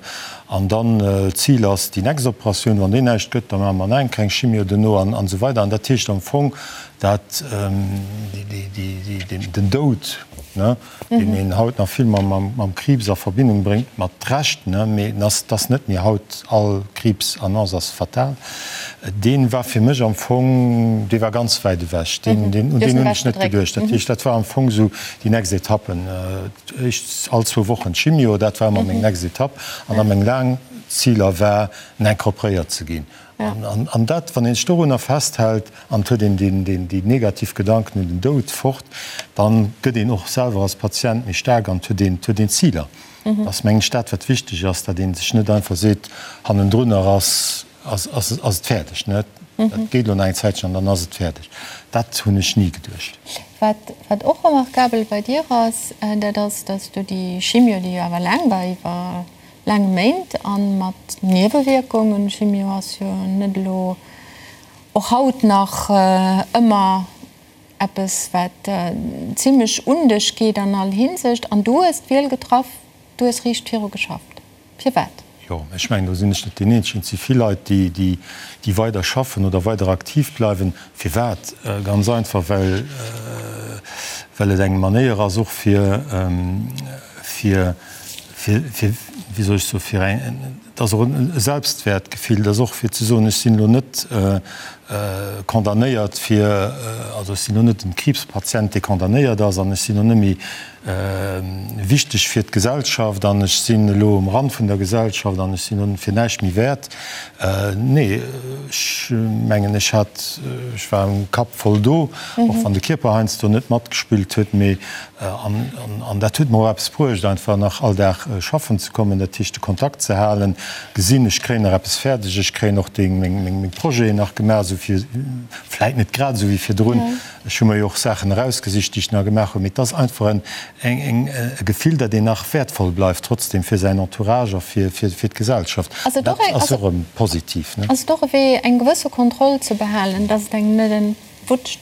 B: An dann, d'Zil ass déi nächst Operatioun, wann déi näischt gëtt, da maache mer nach eng kleng Chimio duerno an esou weider. An dat heescht am Fong, dat den Doud. ne, deen een haut nach vill mam Kriibs a Verbindung bréngt, mat Recht, ne, mee en ass, 't ass net méi haut all Kriibsannonce ass fatal, dee war fir mech am Fong, dee war ganz wäit ewech, deen, deen, un deen hunn ech net geduecht. Dat heescht, dat war am Fong esou déi nächst Etappe, éischt all zwou Wochen Chimio, dat war ëmmer meng nächst Etapp an da meng laang Ziler war, incorporéiert ze ginn. An dat, wann ee sech dorunner festhält an et huet een déi negativ Gedanken un den Doud fort, da gëtt een och selwer als Patient méi staark an et huet een Ziler. Dat ass, mengen ech, dat, wat wichteg ass, datt ee sech net einfach seet, hannendrunner ass et fäerdeg. Dat geet elo nach eng Zäitchen an dann ass et fäerdeg. Dat hunn ech ni geduecht.
A: Wat och remarkabel bei dir ass, dat ass, datt s du déi Chimio, déi jo awer laang war, iwwer Laang Méint an mat Niewewierkungen. Chimio ass jo net elo och haut nach ëmmer eppes wat zimlech un dech geet an all Hinsicht. An du hues d'Wiel getraff, du hues riicht viru geschafft. Firwat?
B: Jo, ech mengen do sinn ech net deen eenzegen. Et si vill Leit déi déi weider schaffen oder weider aktiv bleiwen. Firwat? Ganz einfach well well et eng Manéier ass och fir fir fir, fir, wéi soll ech soen, fir eng, et ass och e Selbstwäertgefill, et ass och fir ze soen, ech sinn elo net condamnéiert fir, also ech sinn elo net en Kriibspatient, dee condamnéiert ass an ech sinn elo net méi wichteg fir d'Gesellschaft an ech sinn elo um Rand vun der Gesellschaft an ech sinn elo fir näischt méi wäert. Nee, ech mengen, ech hat, ech war am Kapp voll do, och wann de Kierper heiansdo net matgespillt huet, mee An dat huet mer och eppes bruecht, einfach nach all Dag schaffen ze kommen, dat heescht de Kontakt ze halen, gesinn, ech kréien nach eppes fäerdeg, ech kréien och déi meng Projeten nach gemaach, esou fir, vläit net grad esou wéi virdrun, ech hu mer jo och Saachen erausgesicht, déi ech nach gemaach hunn, mee et ass einfach en eng e Gefill, datt een nach wäertvoll bleift trotzdem fir säin Entourage a fir fir d'Gesellschaft.
A: Ass et
B: och
A: eng,
B: Dat ass och erëm positiv, ne?
A: Ass et och e Wee, eng gewësse Kontroll ze behalen, datt et engem net entwutscht?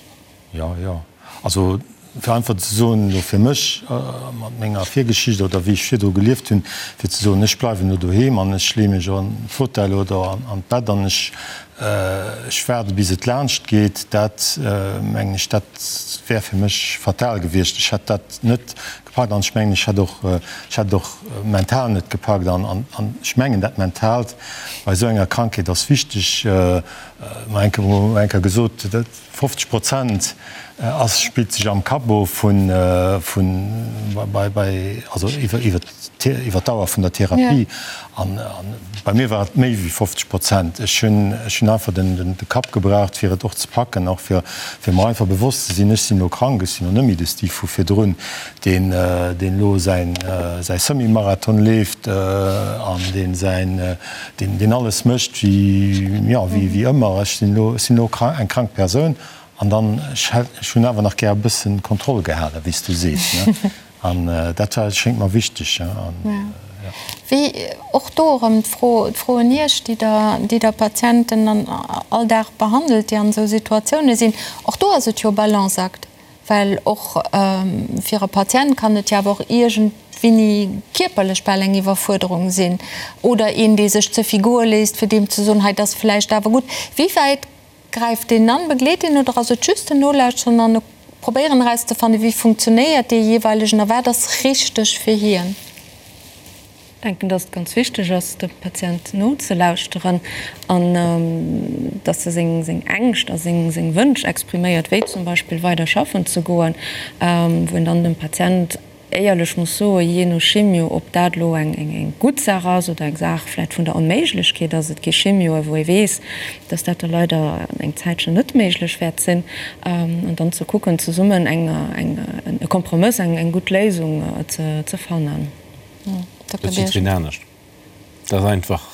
B: Jo, jo. Also, fir einfach ze soen, elo fir mech, mat menger Virgeschicht oder wéi ech virdru gelieft hunn, fir ze soen, ech bleiwen elo doheem an ech leeë mech an de Fauteuil oder an d'Bett an ech, ech waarde bis et laanscht geet, dat mengen ech, dat wär fir mech fatal gewiescht. Ech hätt dat net gepackt an ech mengen, ech hätt och, ech hätt et och mental net gepackt. An ech mengen, dat Mentaalt bei esou enger Krankheet ass wichteg. Mer eng Kéier gesot, 50 Prozent ass, spillt sech am Kapp of vun, vun, bei, bei, also iwwer, iwwer, iwwer d'Dauer vun der Therapie. An, an bei mir war et méi wéi 50 Prozent. Ech hunn, ech hunn einfach den, den, de Kapp gebraucht, fir et och ze packen, och fir, fir mer einfach bewosst ze sinn, ech sinn elo krank, ech sinn elo net méi de Steve vu virdrun, deen, deen elo säin, säi Semi-Marathon leeft an deen säin, deen deen alles mécht wéi, jo, wéi, wéi ëmmer. Ech sinn elo, ech sinn elo eng krank Persoun an dann, ech hätt, ech hunn awer nach gär e bëssen Kontroll gehalen, wéi s du sees, ne. An dat war, schéngt mer wichteg, ja, an, ja.
A: Wéi, och do erëm d'Fro, d'Fro un Iech, déi Der, déi Der Patienten an all Dag behandelt, déi an esou Situatioune sinn, och do ass et jo e Balanceakt. Well och fir e Patient kann et jo awer och iergendwéini kierperlech bal eng Iwwerfuerderung sinn. Oder een, dee sech ze vill goe léisst, fir deem ze soen, hei, et ass vläicht awer gutt. Wéi wäit gräift deen an, begleet deen oder ass et just en Nolauschteren an e Probéieren erauszefannen, wéi funktionéiert dee jeeweilegen a wat ass richteg fir hien?
D: Denken, dass et ganz wichteg ass, dem Patient nozelauschteren an dass e seng Ängscht a seng Wënsch expriméiert, wéi zum Beispill weider schaffen ze goen, wou een dann dem Patient éierlech muss soen, jee no Chimio, ob dat elo eng gutt Saach ass oder eng Saach vläicht vun der Onméiglechkeet ass. Et gi Chimioe wou ee weess, dass dat da leider eng Zäitchen net méiglech wäert sinn, an dann ze kucken, zesummen e Kompromëss, eng gutt Léisung ze fannen.
C: Dat ass jiddwereen anescht. Dat ass einfach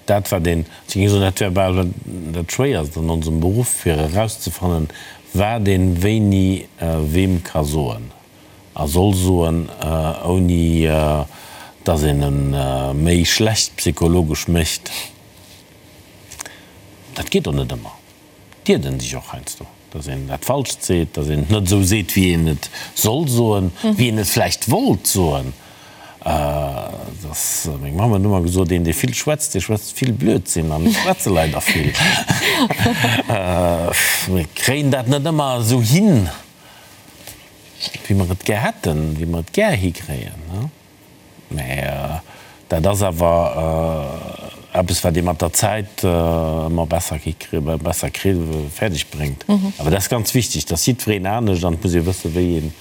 C: dat, wat een, ech géing soen, dat wär bal dat Schwéierst an onsem Beruff, fir erauszefannen, wat een wéini weem ka soen a soll soen, ouni datt een e méi schlecht psychologesch mécht. Dat geet och net ëmmer. D'iert en sech och heiansdo, dass een dat Falscht seet, dass een et net esou seet, wéi een et soll soen, wéi een et vläicht wollt soen. Dass, meng Mamm huet ëmmer gesot, een, dee vill schwätzt, dee schwätzt vill Blödsinn. An ech schwätze leider vill. Mir kréien dat net ëmmer esou hin. wéi mer et gär hätten, wéi mer et gär hikréien. Mä dat ass awer eppes, wat ee mat der Zäit ëmmer besser hikritt, besser kritt, fäerdeg bréngt. Awer dat ass ganz wichteg, dass jiddwereen anescht an et muss ee wëssen, wéi een,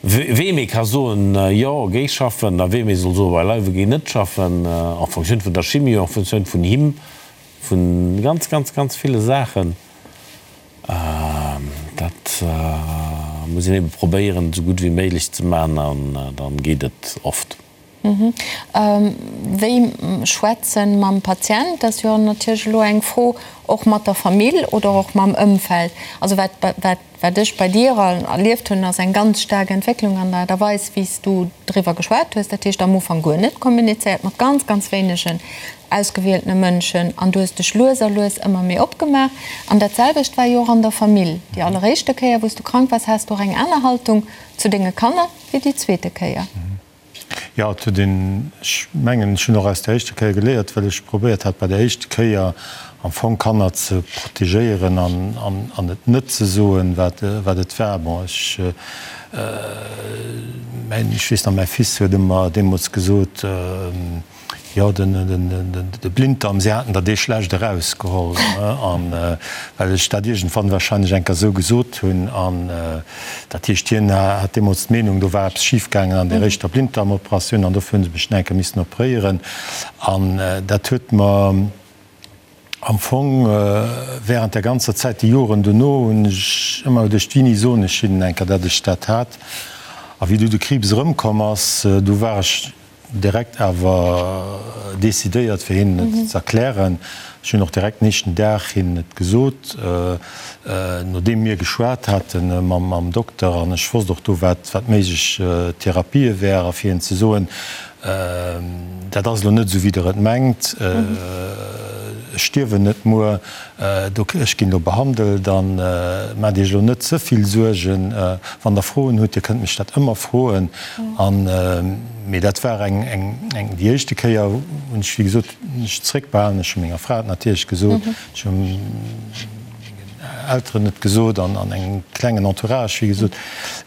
C: weem ee ka soen, jo, géi schaffen, a weem ee soll soen, beileiwe géi net schaffen, en fonction vun der Chimio, en fonction vun him, vu ganz, ganz, ganz ville Saachen. Dat muss een ebe probéieren, esou gutt wéi méiglech ze maachen an dann geet et oft.
A: Wéi schwätzen mam Patient, dat ass jo natierlech elo eng Fro, och mat der Famill oder och mam Ëmfeld. Also wat, wat, wat ech bei dir erlieft hunn, ass eng ganz staark Entwécklung an der Aart a Weis, wéi s du driwwer geschwat hues. Dat heescht am Ufank guer net kommunizéiert, mat ganz, ganz wéinegen ausgewieltene Mënschen an du hues dech lues a lues ëmmer méi opgemaach. An dat selwecht war jo och an der Famill. Déi alleréischte Kéier, wou s du krank waars, has du och eng aner Haltung zu denge Kanner wéi déi zweete Kéier.
B: Jo, et huet een, ech mengen, ech hunn och aus der éischter Kéier geléiert, well ech probéiert hat bei der éischter Kéier am Fong Kanner ze protegéieren an an et net ze soen, wat wat et war. Bon, ech mäin, ech weess nach, mäi Fils huet ëmmer deemools gesot, Jo, de Blinddarm, si haten der dee schlecht erausgeholl, an well ech dat iergendwann wahrscheinlech eng Kéier esou gesot hunn. An dat heescht, hien hat deemools d'Meenung, do war eppes schifgaangen an där éischter Blinddarmoperatioun an dofir hu se mech nach eng Kéier missen operéieren. An dat huet mer am Fong während der ganzer Zäit, déi Joren dono, hunn ech ëmmer geduecht, wéini soen ech hinnen eng Kéier, datt ech dat hat. A wéi du de Kriibs erëmkomm ass, du war ech Direkt awer decidéiert fir hinnen et ze erklären. Ech hunn och direkt den éischten Dag hinnen et gesot, nodeem mir geschwat hate mam Dokter an ech wosst och do wat méiglech Therapië wäre fir hinnen ze soen, dat ass elo net esou wéi der et mengt, ech stierwen net muer, Ech ginn elo behandelt an maacht Iech elo net ze vill Suergen. Wann Der Froen hutt, Dir kënnt mech dat ëmmer froen. An, mee dat war eng, eng, eng, déi éischte Kéier hunn ech, wéi gesot, mech zréckbehalen. Ech hu menger Fra et natierlech gesot, ech hu mengen Elteren et gesot an an engem klengen Entourage, wéi gesot.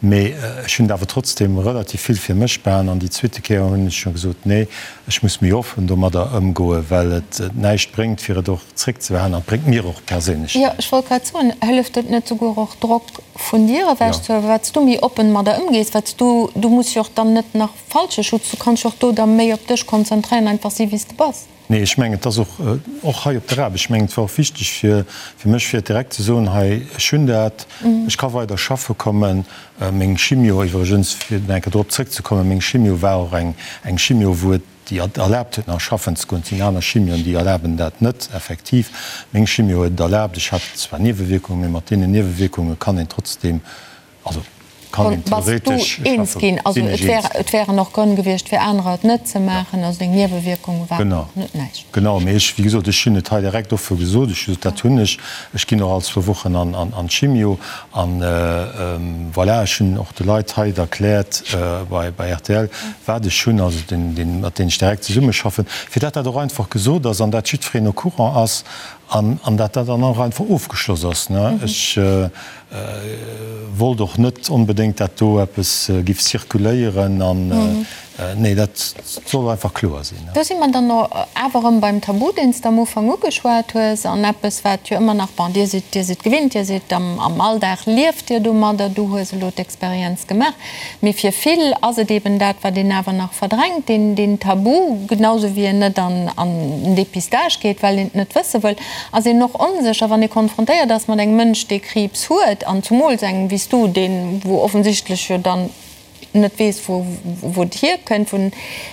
B: Mee ech hunn et awer trotzdem relativ vill fir mech behalen. An déi zweete Kéier hunn ech jo gesot, nee, ech muss méi offen domadder ëmgoen, well et näischt bréngt, fir et och zréckzebehalen an et bréngt mir och perséinlech
A: Jo, ech wollt grad soen, hëlleft et net souguer och Drock vun dir ewech ze huelen, wat s du méi oppen mat der ëmgees, wat s du, du muss jo och dann net nach falsche Schutz, du kanns jo och do da méi op dech konzentréieren, einfach si wéi s de bass.
B: Nee, ech mengen, et ass och, och hei op der Aarbecht, ech mengen, et war och wichteg fir, fir mech, fir et direkt ze soen, hei, ech hunn dat, ech ka weider schaffe kommen. Meng Chimio iwwregens, fir nach eng Kéier drop zrëckzekommen, meng Chimio war och eng, eng Chimio, wou et, déi et erlaabt huet nach schaffen ze goen. Et sinn aner Chimioen, déi erlaben dat net effektiv. Meng Chimio huet et erlaabt. Ech hat zwar Niewewierkungen, mee mat deenen Niewewierkunge kann een trotzdem, also kann een
A: Bass du
B: theoretesch
A: eens
B: schaffen.
A: ginn? Also
B: Sinn ech
A: et wär,
B: eens.
A: et wären och Grënn gewiescht fir anerer et net ze maachen. Also deng Niewewierkunge waren
B: Genau,
A: och net näischt.
B: genau. Mee ech, wéi gesot, ech hunn et hei direkt offe gesot. Ech hu gesot, dat hunn ech. Ech ginn och all zwou Wochen an, an, an d'Chimio. An voilà, ech hunn och de Leit hei et erkläert bei, bei rtl, wat ech hunn, also den, den, mat deenen ech direkt zesummeschaffen, fir dat dat och einfach gesot ass an dat jiddwereen au courant ass an, an dat dat dann och einfach ofgeschloss ass, ne. Ech wollt och net onbedéngt, dat do eppes giff zirkuléieren an, nee, dat soll einfach kloer sinn.
A: Do si mer dann awer erëm beim Tabu, deen s de am Ufank ugeschwat hues, an eppes, wat jo ëmmer nach, bon, Dir sidd, Dir sidd gewinnt, Dir sidd am, am Alldag lieft Dir domadder, du hues elo d'Experienz gemaach, mee fir vill ass et eben dat, wat een awer nach verdrängt, deen, deen Tabu, genausou wéi een net an, an den Dépistage geet, well een et net wësse wëll, ass een och onsécher, wann ee konfrontéiert ass mat engem Mënsch, dee Kriibs huet, an zumools engem wéi s du, deen, wou offensichtlech jo dann net weess, wou, wou et hierkënnt, wou,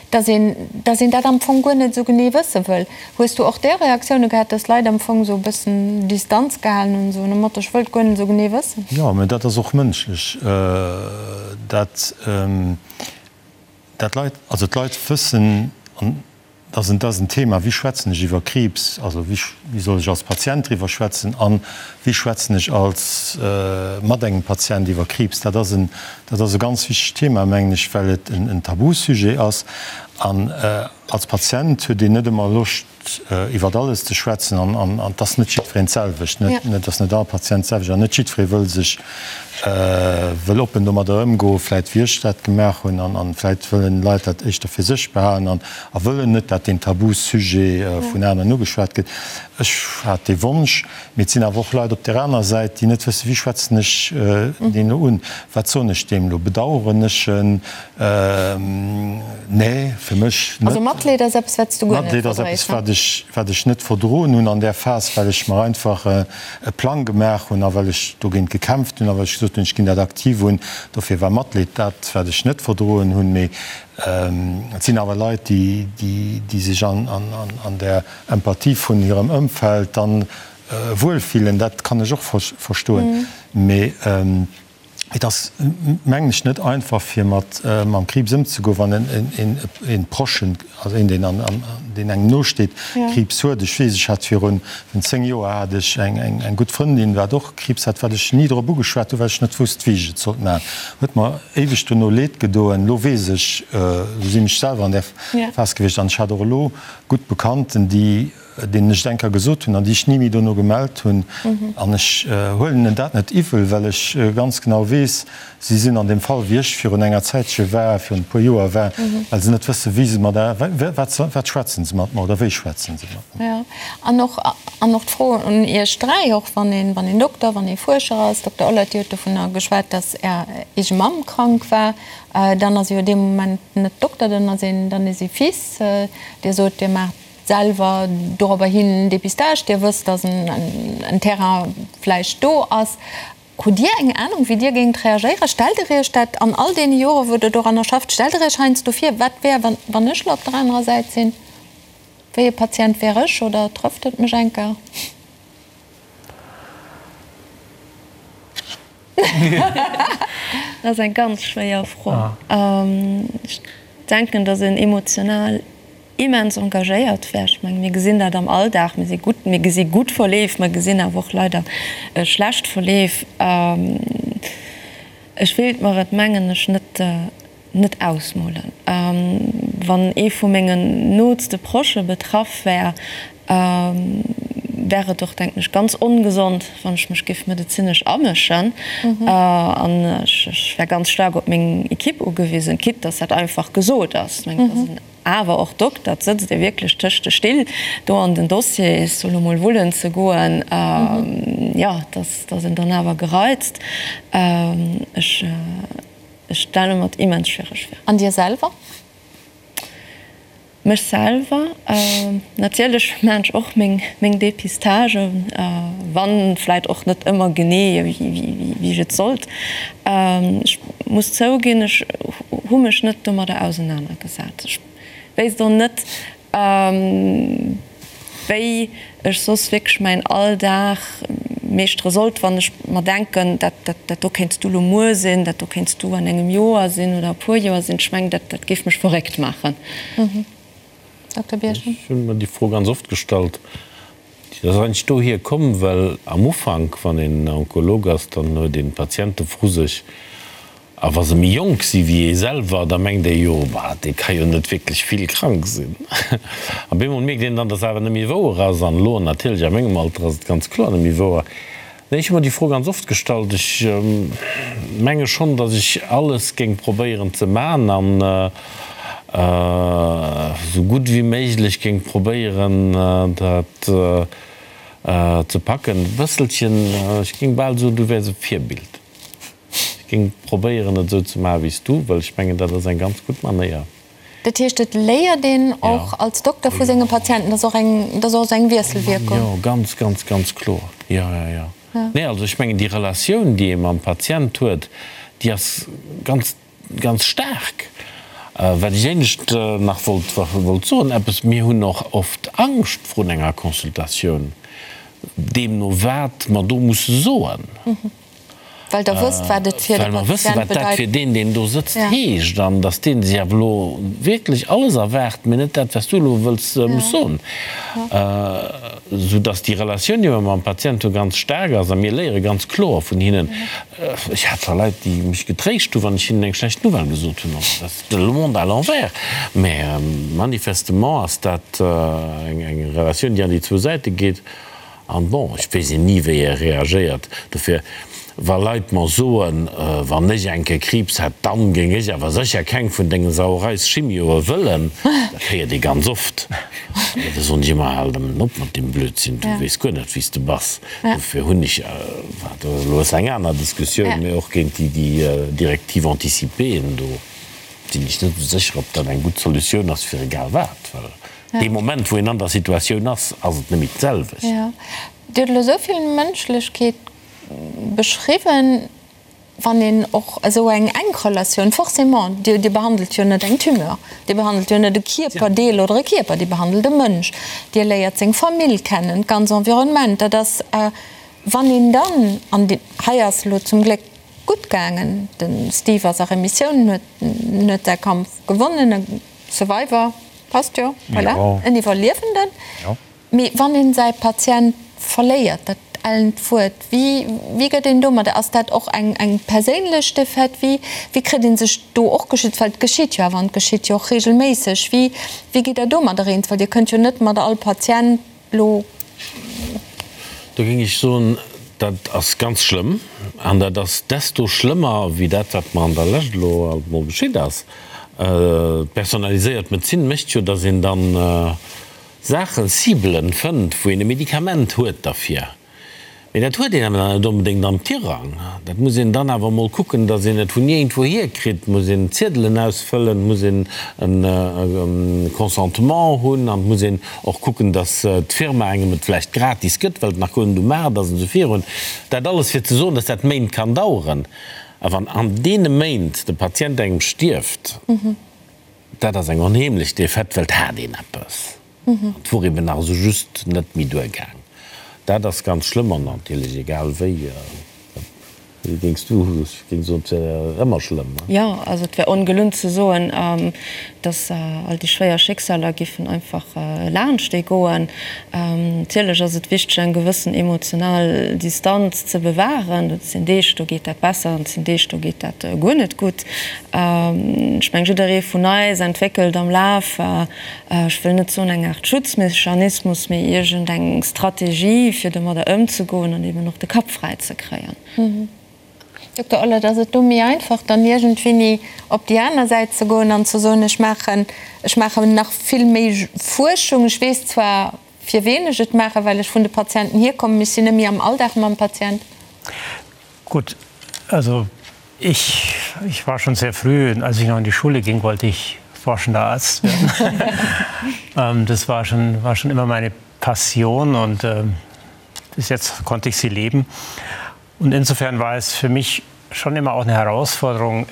A: dass een, dass een dat am Fong guer net esou genee wësse wëll. Hues du och där Reaktioune gehat, dass Leit am Fong esou e bëssen Distanz gehalen hunn, esou nom Motto, ech wëll et guer net esou genee wëssen?
B: Jo, mä dat ass och mënschlech, dat, dat Leit, also d'Leit wëssen, an Dat ass en Thema, wéi schwätzen ech iwwer Kriibs, also wéi soll ech als Patient driwwer schwätzen a wéi schwätzen ech als mat engem Patient iwwer Kriibs. Dat ass en, dat ass e ganz wichtegt Thema, mengen ech, well et en Tabusujet ass. An als Patient huet een net ëmmer Loscht, iwwert alles ze schwätzen. An et ass net jiddwereen d'selwecht. Et ass net all Patient d'selwecht an net jiddweree wëll sech, wëll oppen domadder ëmgoen, vläit wéi ech dat gemaach hunn. An vläit wëllen Leit dat éischter fir sech behalen an wëllen net, dat deen Tabusujet vun aneren ugeschwat gëtt. Ech hat dee Wonsch, mee et sinn awer och Leit op där anerer Säit, déi net wëssen, wéi schwätzen ech deen elo un, wat soen ech deem elo, bedaueren ech en? Nee, fir mech net.
A: Also Matleed ass eppes, wat s du guer net
B: Matleed ass eppes, wat ech, wat ech net verdroen hunn an där Phas, well ech mer einfach e Plang gemaach hunn a well ech dogéint gekämpft hunn a well ech gesot hunn, ech ginn dat aktiv un. Dofir war Matleed dat, wat ech net verdroen hunn. Mee et sinn awer Leit, déi, déi sech an där Empathie vun hirem Ëmfeld dann wuel fillen, dat kann ech och verstoen. Mee et ass, mengen ech, net einfach fir mat mam Kriibs ëmzegoen, wann en Prochen, also een deen deen engem no steet, Kriibs huet. Ech weess, ech hat virun 10 Joer hat ech eng gutt Frëndin, wat och Kriibs hat, wat ech ni drop ugeschwat hunn, well ech net wousst wéi ech et sollt maachen. Huet mer éiweg dono Leed gedoen. Elo weess ech, elo sinn ech selwer an där Phas gewiescht an ech hat och elo gutt Bekannten, déi, deenen ech et eng Kéier gesot hunn an déi ech ni méi dono gemellt hunn. An ech huelen hinnen dat net iwwel, well ech ganz genau weess, si sinn an deem Fall, wéi ech virun enger Zäitche war, virun e puer Joer war, well se net wëssen, wéi se mat, wat, wat schwätzen se mat mer oder wéi schwätzen se mat mer.
A: Jo, an och, an och d'Fro un Iech dräi, och wann een, wann een Dokter, wann ee Fuerscher ass, Dokter Ollert, Dir hutt dovunner geschwat, datt Är eege Mamm krank war. Dann ass ee jo dee Moment net Dokter, dann ass een, dann ass ee Fils. Dir sot, Dir maacht selwer dorobber hin en Dépistage, Dir wësst, datt en Terrain vläicht do ass. Hutt Dir eng Anung, wéi Dir géingt reagéieren? Stellt Der Iech dat an all deene Jore wou Der doranner schafft, stellt Der Iech heiansdo vir, wat wär, wann ech elo op der anerer Säit sinn? Wéi e Patient wär ech oder trëfft et mech enker?
D: Dat ass eng ganz schwéier Fro. Ech denken, datt een emotional immens engagéiert wär. Ech mengen, mir gesinn dat am Alldag, mir si gutt, mir gesi gutt Verleef, mer gesinn awer och leider schlecht Verleef. Ech wéilt mer et, mengen ech, net net ausmolen. Wann ee vu mengen nootste Proche betraff wär, wär et och, denken ech, ganz ongesond, wann ech mech géif medezinesch amëschen. An ech wär ganz staark op meng Equipe ugewisen, quitte dass dat einfach gesot ass. Ech mengen, et ass en awer och Dokter, et sëtzt ee wierklech tëscht de Still do an den Dossiers, elo mol wullen ze goen, jo, dass een dann awer gereizt. Ech. Ech stelle mer et immens schwiereg vir.
A: An dir selwer?
D: Mech selwer? Natierlech maachen ech och meng Depistagen, wann vläit och net ëmmer genee wéi ech et sollt. Ech muss zouginn, ech hu mech net domadder ausenanergesat. Ech wéisst och net, Wéi ech soss wierklech mäin Alldag meeschtere sollt, wann ech mer denken, dat dat do kéints du lo muer sinn, dat do kéints du an engem Joer sinn oder e puer Joer sinn, ech mengen, dat dat géif mech verréckt maachen.
A: Dokter Birchen.
C: Ech hu mer déi Fro ganz oft gestallt. Déi ass eigentlech dohier komm, well am Ufank, wann een Onkolog ass, dann huet een Patiente vru sech, A wa se méi jonk si wéi ee selwer, da mengt ee jo, Bah, dee ka jo net wierklech vill krank sinn. A bemol mierkt een dann, dass awer net méi wouer ass. An elo natierlech a mengem Alter ass et ganz kloer net méi wouer. Nee, ech hu mer déi Fro ganz oft gestallt. Ech menge schonn, dass ech alles géing probéieren ze man an esou gutt wéi méiglech géing probéieren, dat ze packen. E bësselchen, ech géing bal soen, du wäers e Virbild. Ech géing probéieren et esou ze maachen wéi s du, well ech mengen dat ass eng ganz gutt Manéier.
A: Dat heescht et léiert een och als Dokter vu senge Patienten, dat ass och eng, dat ass och esou eng Wiesselwierkung.
C: Jo, ganz, ganz, ganz kloer, jo, jo, jo. Nee, also ech mengen déi Relatioun déi ee mam Patient huet, déi ass ganz, ganz staark. Wat ech éinescht nach wollt, wollt soen, eppes, mir hunn och oft Angscht vrun enger Consultatioun, deemno wat mer do musse soen.
A: Well Der wësst, wat et fir de
C: Well mer wëssen,
A: Patient
C: wat dat
A: bedeit.
C: fir deen, deen do sëtzt, heescht an dass dee sech awer elo wierklech alles erwaart, mee net dat, wat s du elo wëlls, muss soen. Soudass déi Relatioun, déi mer mam Patient hu, ganz staark ass a mir léiere ganz kloer vun hinnen. Ech hat scho Leit, déi mech getréischt hu wann ech hinnen eng schlecht Nouvelle gesot hunn. Also dat ass le monde à l'envers. Mä manifestement ass dat eng Relatioun, déi an déi zwou Säite geet. An bon, ech weess een ni wéi e reagéiert. Dofir, wa Leit mer soen, wann ech eng Kéier Kriibs hätt, dann géing ech awer sécher keng vun dengen Sauereis-Chimioe wëllen, dat héiert ee ganz oft. Da soen ech ëmmer, Hal nëmmen op mat deem Blödsinn, du weess guer net wéi s de bass. Dofir hunn ech, dat ass elo eng aner Diskussioun, mee och géint déi Directive anticipéeën do sinn ech net esou sécher, ob dat eng gutt Solutioun ass fir egal wat, well Dee Moment, wou een an der Situatioun ass, ass et net méi d'selwecht.
A: Jo. Dir hutt elo esou vill Mënschlechkeet beschriwwen. Wann een och esou eng enk Relatioun, forcément, Dir, Dir behandelt jo net eng Tumeur, Dir behandelt jo net e Kierperdeel oder e Kierper, Dir behandelt e Mënsch, Dir léiert seng Famill kennen, d'ganz Environnement. Dat ass, wann een dann, an hei ass elo zum Gléck gutt gaangen, de Steve ass a Remissioun, huet, huet säi Kampf gewonnen, e Survivor. Passt jo, voilà, en Iwwerliewenden. Mee wann een säi Patient verléiert, dat ellent Wuert, wéi, wéi gëtt een domadder? Ass dat och eng, eng perséinlech Defaite? Wéi, wéi kritt ee sech do och geschützt? Well et geschitt jo awer an et geschitt jo och reegelméisseg. Wéi, wéi gitt Der domadder eens? Well Dir kënnt jo net mat all Patient elo.
C: Do géing ech soen, dat ass ganz schlëmm. An dat ass desto schlëmmer wéi dat, wat mer an der Lescht elo alt emol geschitt ass. D'personaliséiert Medezin mécht jo, datt een dann Saachen, Cibelen fënnt, wou een e Medikament huet derfir. Mee dat huet een awer dann net onbedéngt am Tirang. Dat muss een dann awer emol kucken, datt een et vun iergendwouhier kritt. Et muss een Ziedelen ausfëllen, et muss een e Consentement hunn an et muss een och kucken, datt d'Firma engem et vläicht gratis gëtt, well et nach guer net um Maart ass an esou virun. Dat alles fir ze soen, datt dat Méint kann daueren. A wann an deene Méint de Patient engem stierft, dat ass eng onheemlech Defaite, well et hat een eppes. An et wor eben nach esou just net méi duergaang. Dat ass ganz schlëmm an natierlech egal wéi, wéi géings du, ech géing soen, et wär ëmmer schlëmm, ne?
D: Jo, also et wär ongelunn ze soen, datt all déi schwéier Schicksaler giffen einfach laanscht ee goen. Natierlech ass et wichteg eng gewëssen emotional Distanz ze bewahren. Et sinn Deeg, do geet dat besser an et sinn Deeg, do geet dat guer net gutt. Ech meng jidderee vun eis entwéckelt am Laf ech wëll net soen eng Aart Schutzmechanismus, mee iergend eng Strategie, fir domadder ëmzegoen an eben och de Kapp fräi ze kréien.
A: Dokter Ollert, ass et do méi einfach, dann iergendwéini op déi aner Säit ze goen an ze soen, ech maachen, ech maachen nach vill méi Fuerschung, ech weess zwar, fir ween ech et maachen, well ech vun de Patienten hierkommen, mee ech sinn net méi am Alldag mam Patient?
E: Gutt, also Ich, ich war schon sehr früh, als ich noch in die Schule ging, wollte ich forschender Arzt werden. ähm, das war schon, war schon immer meine Passion und äh, bis jetzt konnte ich sie leben. Und insofern war es für mich schon immer auch eine Herausforderung,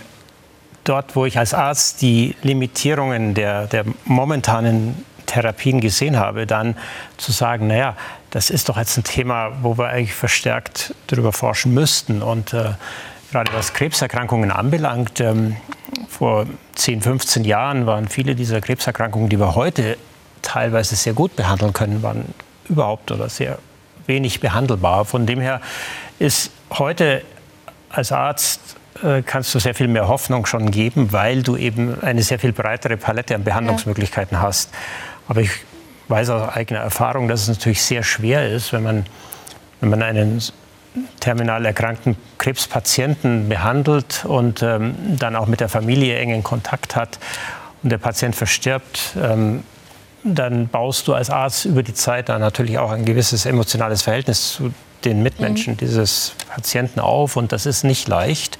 E: dort, wo ich als Arzt die Limitierungen der, der momentanen Therapien gesehen habe, dann zu sagen, naja, das ist doch jetzt ein Thema, wo wir eigentlich verstärkt darüber forschen müssten. Und äh, gerade was Krebserkrankungen anbelangt, ähm, vor 10, 15 Jahren waren viele dieser Krebserkrankungen, die wir heute teilweise sehr gut behandeln können, waren überhaupt oder sehr wenig behandelbar. Von dem her ist heute als Arzt äh, kannst du sehr viel mehr Hoffnung schon geben, weil du eben eine sehr viel breitere Palette an Behandlungsmöglichkeiten ja. hast. Aber ich weiß aus eigener Erfahrung, dass es natürlich sehr schwer ist, wenn man, wenn man einen terminal erkrankten Krebspatienten behandelt und ähm, dann auch mit der Familie engen Kontakt hat und der Patient verstirbt. Ähm, dann baust du als Arzt über die Zeit dann natürlich auch ein gewisses emotionales Verhältnis zu den Mitmenschen mhm. dieses Patienten auf und das ist nicht leicht.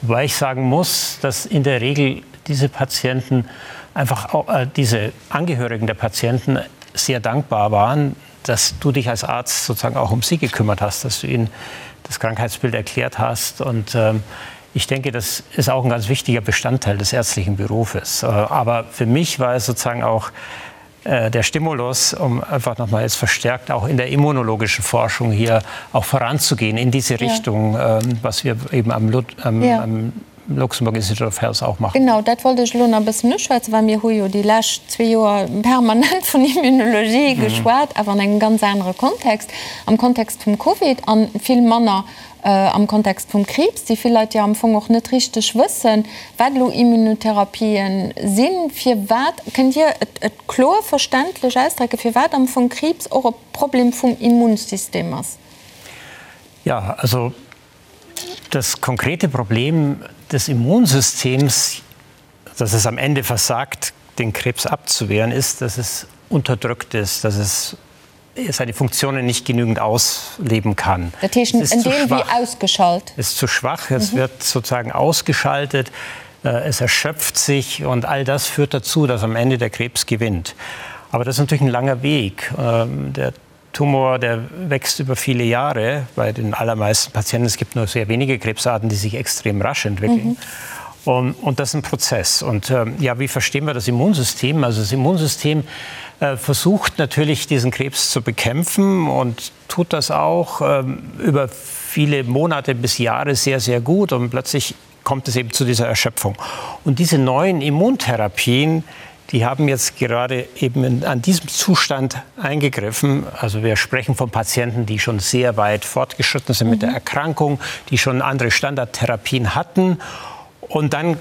E: Wobei ich sagen muss, dass in der Regel diese Patienten einfach auch, äh, diese Angehörigen der Patienten sehr dankbar waren, dass du dich als Arzt sozusagen auch um sie gekümmert hast, dass du ihnen das Krankheitsbild erklärt hast und ähm, ich denke, das ist auch ein ganz wichtiger Bestandteil des ärztlichen Berufes. Äh, aber für mich war es sozusagen auch. äh, der Stimulus, um einfach noch mal jetzt verstärkt auch in der immunologischen Forschung hier auch voranzugehen in diese Richtung, ja. ähm, was wir eben am, am, ja. am Luxembourg Institute of Health auch machen.
A: Genau, dat wollt ech elo nach e bëssen uschwätzen, well mir hu jo déi lescht zwee Joer permanent vun Immunologie geschwat, awer an engem ganz anere Kontext, am Kontext vum Covid a vill manner am Kontext vum Kriibs, déi vill Leit jo am Fong och net richteg wëssen, wat elo Immunotherapien sinn. Firwat, kënnt Dir et kloer verständlech ausdrécken, firwat am Fong Kriibs och e Problem vum Immunsystem ass?
E: Ja, also das konkrete Problem des Immunsystems, dass es am Ende versagt, den Krebs abzuwehren, ist, dass es unterdrückt ist, dass es seine Funktionen nicht genügend ausleben kann.
A: Dat heescht, en Deel wéi ausgeschalt.
E: Ist zu schwach, es mhm. wird sozusagen ausgeschaltet, äh, es erschöpft sich und all das führt dazu, dass am Ende der Krebs gewinnt. Aber das ist natürlich ein langer Weg. Ähm, der Tumor, der wächst über viele Jahre bei den allermeisten Patienten. Es gibt nur sehr wenige Krebsarten, die sich extrem rasch entwickeln. Mhm. Und, und das ist ein Prozess. Und ähm, ja, wie verstehen wir das Immunsystem? Also das Immunsystem äh, versucht natürlich, diesen Krebs zu bekämpfen und tut das auch ähm, über viele Monate bis Jahre sehr, sehr gut. Und plötzlich kommt es eben zu dieser Erschöpfung. Und diese neuen Immuntherapien, die haben jetzt gerade eben in, an diesem Zustand eingegriffen. Also wir sprechen von Patienten, die schon sehr weit fortgeschritten sind mhm. mit der mhm. Erkrankung, die schon andere Standardtherapien hatten. Und dann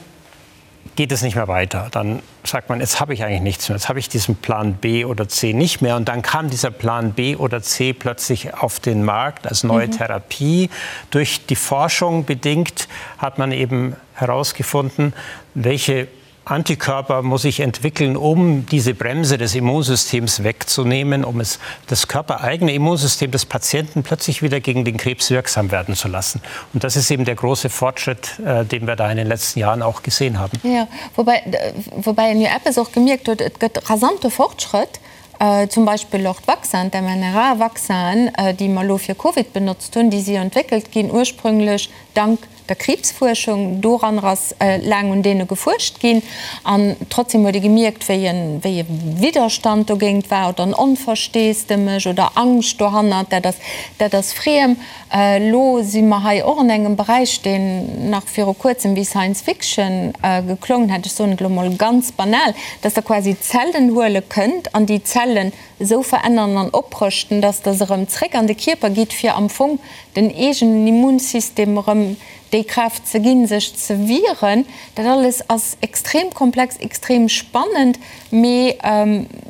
E: geht es nicht mehr weiter. Dann sagt man, jetzt habe ich eigentlich nichts mehr, jetzt habe ich diesen Plan B oder C nicht mehr. Und dann kam dieser Plan B oder C plötzlich auf den Markt als neue mhm. Therapie. Durch die Forschung bedingt hat man eben herausgefunden, welche Antikörper muss ich entwickeln, um diese Bremse des Immunsystems wegzunehmen, um es das körpereigene Immunsystem des Patienten plötzlich wieder gegen den Krebs wirksam werden zu lassen. Und das ist eben der große Fortschritt, äh, den wir da in den letzten Jahren auch gesehen haben.
A: Ja, wobei, äh, wobei een jo eppes och gemierkt huet, et gëtt rasante Fortschrëtt, äh, zum Beispill och d'Vaccinen, d'mRNA-Vaccinen, déi mer elo fir Covid benotzt hunn, déi si jo entwéckelt ginn ursprünglech dank der Kriibsfuerschung. Doranner ass laang un deene gefuerscht ginn an trotzdem huet ee gemierkt, wéi e wéi e Widderstand dogéint war oder en Onversteesdemech oder Angscht dohannert, dat ass dat ass friem. Elo si mer hei och an engem Beräich, deen nach viru kuerzem wéi Science Fiction geklongen hätt, ech soen et elo mol ganz banal, dass Der quasi Zellen huele kënnt an déi Zellen esou verännern an oprëschten, dass Der se erëm zréck an de Kierper gitt, fir am Fong den eegenen Immunsystem erëm déi Kraaft ze ginn, sech ze wieren. Dat alles ass extrem komplex, extrem spannend, mee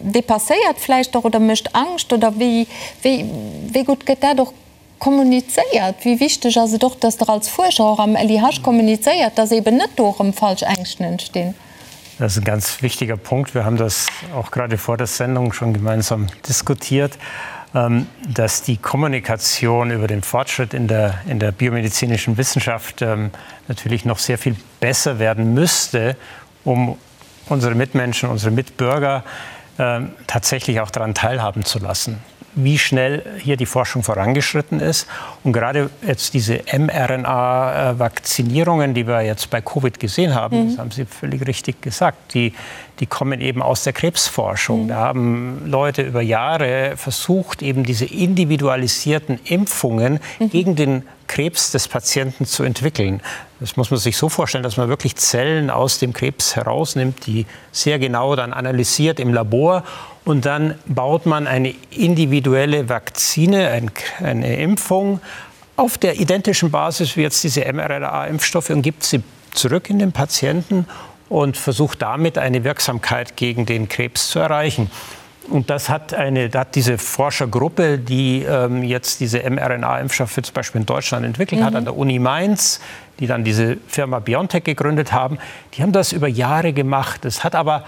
A: depasséiert vläicht och oder mécht Angscht. Oder wéi, wéi, wéi gutt gëtt dat och kommunizéiert? Wéi wichteg ass et och, dass Der als Fuerscher och am LIH kommunizéiert, dass eeben net do erëm falsch Ängschten entstinn?
E: Das ist ein ganz wichtiger Punkt. Wir haben das auch gerade vor der Sendung schon gemeinsam diskutiert, ähm, dass die Kommunikation über den Fortschritt in der, in der biomedizinischen Wissenschaft ähm, natürlich noch sehr viel besser werden müsste, um unsere Mitmenschen, unsere Mitbürger ähm, tatsächlich auch daran teilhaben zu lassen wie schnell hier die Forschung vorangeschritten ist. Und gerade jetzt diese mRNA-Vakzinierungen, die wir jetzt bei Covid gesehen haben, mhm. das haben Sie völlig richtig gesagt, die, die kommen eben aus der Krebsforschung. Mhm. Da haben Leute über Jahre versucht, eben diese individualisierten Impfungen mhm. gegen den Krebs des Patienten zu entwickeln. Das muss man sich so vorstellen, dass man wirklich Zellen aus dem Krebs herausnimmt, die sehr genau dann analysiert im Labor und dann baut man eine individuelle Vakzine, eine Impfung auf der identischen Basis wie jetzt diese mRNA-Impfstoffe und gibt sie zurück in den Patienten und versucht damit eine Wirksamkeit gegen den Krebs zu erreichen. Und das hat, eine, hat diese Forschergruppe, die ähm, jetzt diese mRNA-Impfstoffe zum Beispiel in Deutschland entwickelt mhm. hat, an der Uni Mainz, die dann diese Firma BioNTech gegründet haben, die haben das über Jahre gemacht. Es hat aber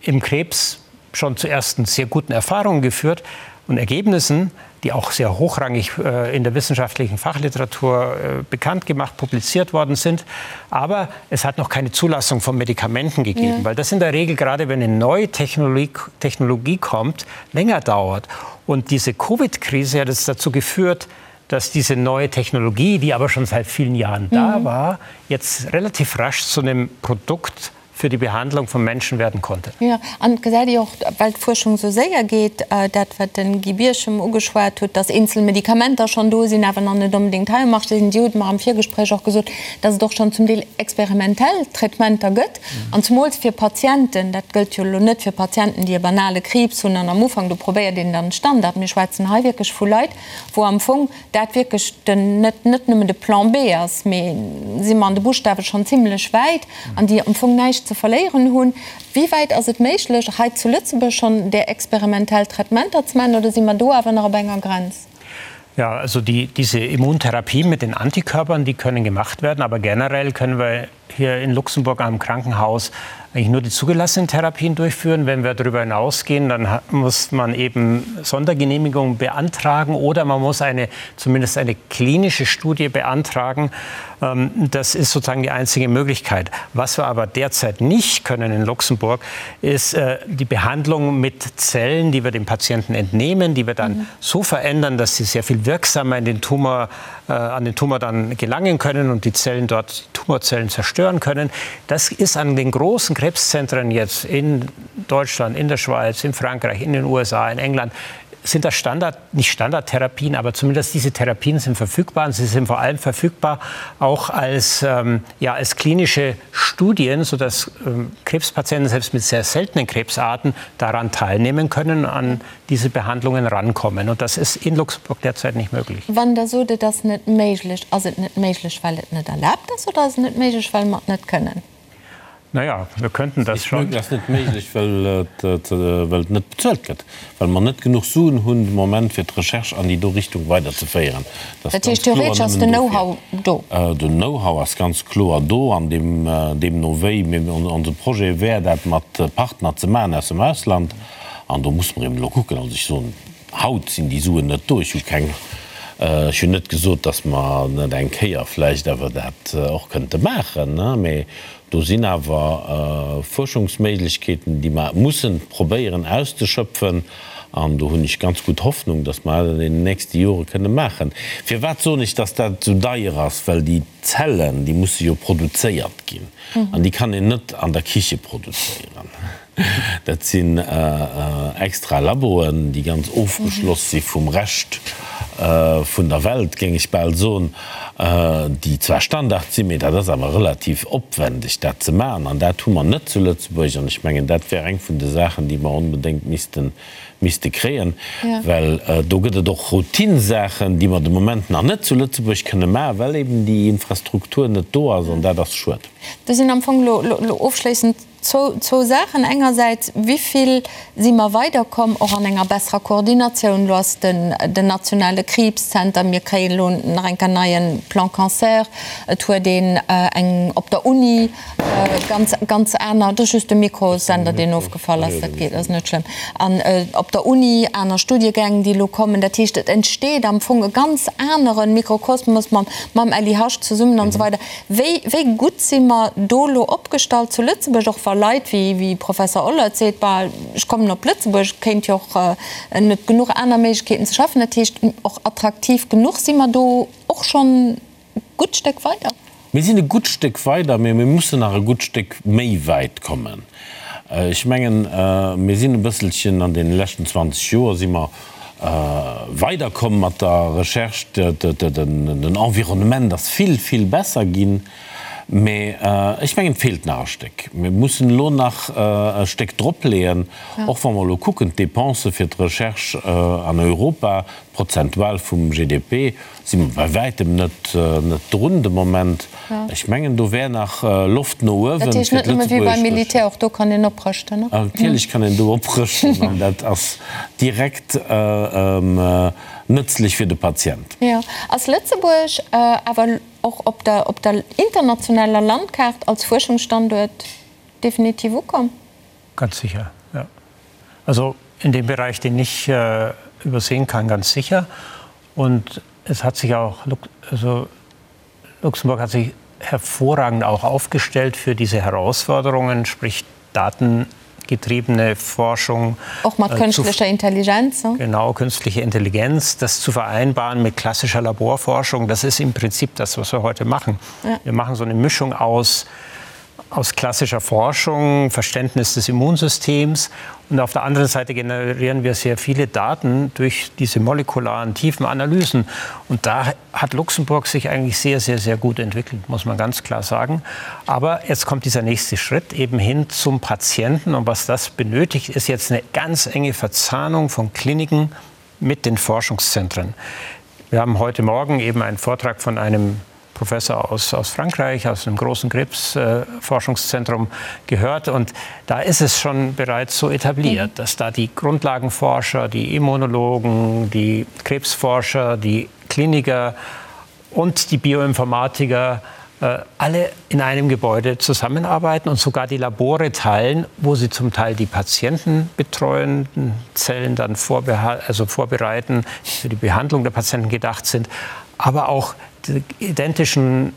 E: im Krebs schon zu ersten sehr guten Erfahrungen geführt und Ergebnissen, die auch sehr hochrangig äh, in der wissenschaftlichen Fachliteratur äh, bekannt gemacht, publiziert worden sind. Aber es hat noch keine Zulassung von Medikamenten gegeben, ja. weil das in der Regel, gerade wenn eine neue Technologie, Technologie kommt, länger dauert. Und diese Covid-Krise hat es dazu geführt, dass diese neue Technologie, die aber schon seit vielen Jahren mhm. da war, jetzt relativ rasch zu einem Produkt. für die Behandlung von Menschen werden konnte.
A: Jo, an et gesäit ee och, well d'Fuerschung esou séier geet, dat wat de Guy Birchem ugeschwat huet, dass eenzel Medikamenter schonn do sinn, awer nach net onbedéngt hei um Marché sinn. Dir hutt mer am Virgespréich och gesot, dass et och schonn zum Deel experimentell Traitementer gëtt, an zemools fir Patienten, dat gëllt jo elo net fir Patienten, déi e banale Kriibs hunn an am Ufank, do probéiert een dann Standard. Mir schwätzen hei wierklech vu Leit, wou am Fong dat wierklech den, net, net nëmmen de Plan B ass, mee si mer an de Buschtawe schonn zimlech wäit an déi am Fong näischt ze verléieren hunn. Wéi wäit ass et méiglech, hei zu Lëtzebuerg schonn där experimentell Traitementer ze maachen, oder si mer do awer nach op enger Grenz?
E: Ja, also die, diese Immuntherapie mit den Antikörpern, die können gemacht werden, aber generell können wir hier in Luxemburg am Krankenhaus eigentlich nur die zugelassenen Therapien durchführen. Wenn wir darüber hinausgehen, dann muss man eben Sondergenehmigungen beantragen oder man muss eine, zumindest eine klinische Studie beantragen. Ähm, das ist sozusagen die einzige Möglichkeit. Was wir aber derzeit nicht können in Luxemburg, ist äh, die Behandlung mit Zellen, die wir dem Patienten entnehmen, die wir dann mhm. so verändern, dass sie sehr viel wirksamer in den Tumor, äh, an den Tumor dann gelangen können und die Zellen dort, die Tumorzellen zerstören können. Das ist an den großen Krebszentren jetzt in Deutschland, in der Schweiz, in Frankreich, in den USA, in England sind das Standard, nicht Standardtherapien, aber zumindest diese Therapien sind verfügbar und sie sind vor allem verfügbar auch als, ähm, ja, als klinische Studien, sodass ähm, Krebspatienten selbst mit sehr seltenen Krebsarten daran teilnehmen können, an diese Behandlungen rankommen. Und das ist in Luxemburg derzeit nicht möglich.
A: Wann Der sot, et ass net méiglech, ass et net méiglech, well et net erlaabt ass oder ass et net méiglech, well mer et net kënnen?
E: Naja, wir könnten das schon.
C: Et ass net méiglech, well et net bezuelt gëtt, well mer net genuch Suen hunn de Moment, fir d'Recherche an déi do Richtung weiderzeféieren.
A: Dat heescht, theoretesch ass den Know-how do?
C: Den Know-how ass ganz kloer do an deemno wéi. Mee onse Projet wär, dat mat Partner ze maachen aus dem Ausland. An do muss mer eben elo kucken. Also ech soen, haut sinn déi Suen net do. Ech hu keng, ech hunn net gesot, datt mer net eng Kéier vläicht awer dat och kënnte maachen, mee do sinn awer Fuerschungsméiglechkeeten, déi mer mussen probéieren auszeschöpfen. An do hunn ech ganz gutt Hoffnung, datt mer dat an deenen nächste Jore kënne maachen. Firwat soen ech, datt dat esou deier ass? Well déi Zellen, déi musse jo produzéiert ginn an déi kann een net an der Kiche produzéieren. Dat sinn extra Laboen, déi ganz ofgeschloss si vum Rescht vun der Welt, géing ech bal soen, déi zwar Standard sinn, mee dat ass awer relativ opwendeg, dat ze maachen. An dat hu mer net zu Lëtzebuerg. An ech mengen, dat wär eng vun de Saachen, déi mer onbedéngt misste misste kréien, well do gëtt et och Routinsaachen, déi mer de Moment nach net zu Lëtzebuerg kënne maachen, well eben déi Infrastruktur net do ass. An dat ass schued.
A: Do sinn am Fong elo ofschléissend Zwou Saachen, Engersäits, wéi vill si mer weiderkomm, och an enger besserer Koordinatioun? Elo ass den nationale Kriibszenter, mir kréien elo nach eng Kéier neie Plan Cancer, et huet een eng op der Uni ganz, ganz aner, et ass just de Mikrosender, deen ofgefall ass, dat geet, ass net schlëmm, an op der Uni aner Studiegäng, déi elo kommen. Dat heescht, et entsteet am Fong e ganz anere Mikrokosmos mam LIH zesummen an esou weider. Wéi, wéi gutt si mer do elo opgestallt zu Lëtzebuerg, och wa Leit wéi, wéi Professor Ollert seet, bah, ech kommen op Lëtzebuerg, et kéint jo och net genuch aner Méiglechkeeten ze schaffen, dat heescht och attraktiv genuch, si mer do och schonn e gutt Stéck weider?
C: Mir sinn e gutt Stéck weider, mee mir mussen nach e gutt Stéck méi wäit kommen. Ech mengen, mir sinn e bësselchen an deene leschten 20 Joer si mer weiderkomm mat der Recherche. Den Environnement ass vill, vill besser ginn. Mee ech mengen, et feelt nach e Stéck. Mir mussen elo nach e Stéck dropleeën, och wa mer elo kucken, d'Dépense fir d'Recherche an Europa, prozentual vum GDP, Si mer bei wäitem net drun de Moment. Ech mengen, do wär nach Loft no uewen
A: fir d'lëtzebuergesch. Dat heescht net nëmme wéi beim Militär, och do kann een oprëschten, ne?
C: Natierlech kann een do oprëschten an dat ass direkt nëtzlech fir de Patient.
A: Jo. Ass Lëtzebuerg awer och op der op der internationaler Landkaart als Fuerschungsstanduert definitiv ukomm?
E: Ganz sicher, ja. Also in dem Bereich, den ich übersehen kann, ganz sicher. Und es hat sich auch also Luxemburg hat sich hervorragend auch aufgestellt für diese Herausforderungen, sprich datengetriebene Forschung.
A: Auch mat künstlicher Intelligenz.
E: Ne? Genau, künstliche Intelligenz, das zu vereinbaren mit klassischer Laborforschung, das ist im Prinzip das, was wir heute machen. Ja. Wir machen so eine Mischung aus. aus klassischer Forschung, Verständnis des Immunsystems und auf der anderen Seite generieren wir sehr viele Daten durch diese molekularen tiefen Analysen. Und da hat Luxemburg sich eigentlich sehr, sehr, sehr gut entwickelt, muss man ganz klar sagen. Aber jetzt kommt dieser nächste Schritt eben hin zum Patienten. Und was das benötigt, ist jetzt eine ganz enge Verzahnung von Kliniken mit den Forschungszentren. Wir haben heute Morgen eben einen Vortrag von einem Professor aus, aus Frankreich, aus einem großen Krebsforschungszentrum äh, gehört. Und da ist es schon bereits so etabliert, mhm. dass da die Grundlagenforscher, die Immunologen, die Krebsforscher, die Kliniker und die Bioinformatiker äh, alle in einem Gebäude zusammenarbeiten und sogar die Labore teilen, wo sie zum Teil die Patienten betreuenden Zellen dann also vorbereiten, die für die Behandlung der Patienten gedacht sind, aber auch die identischen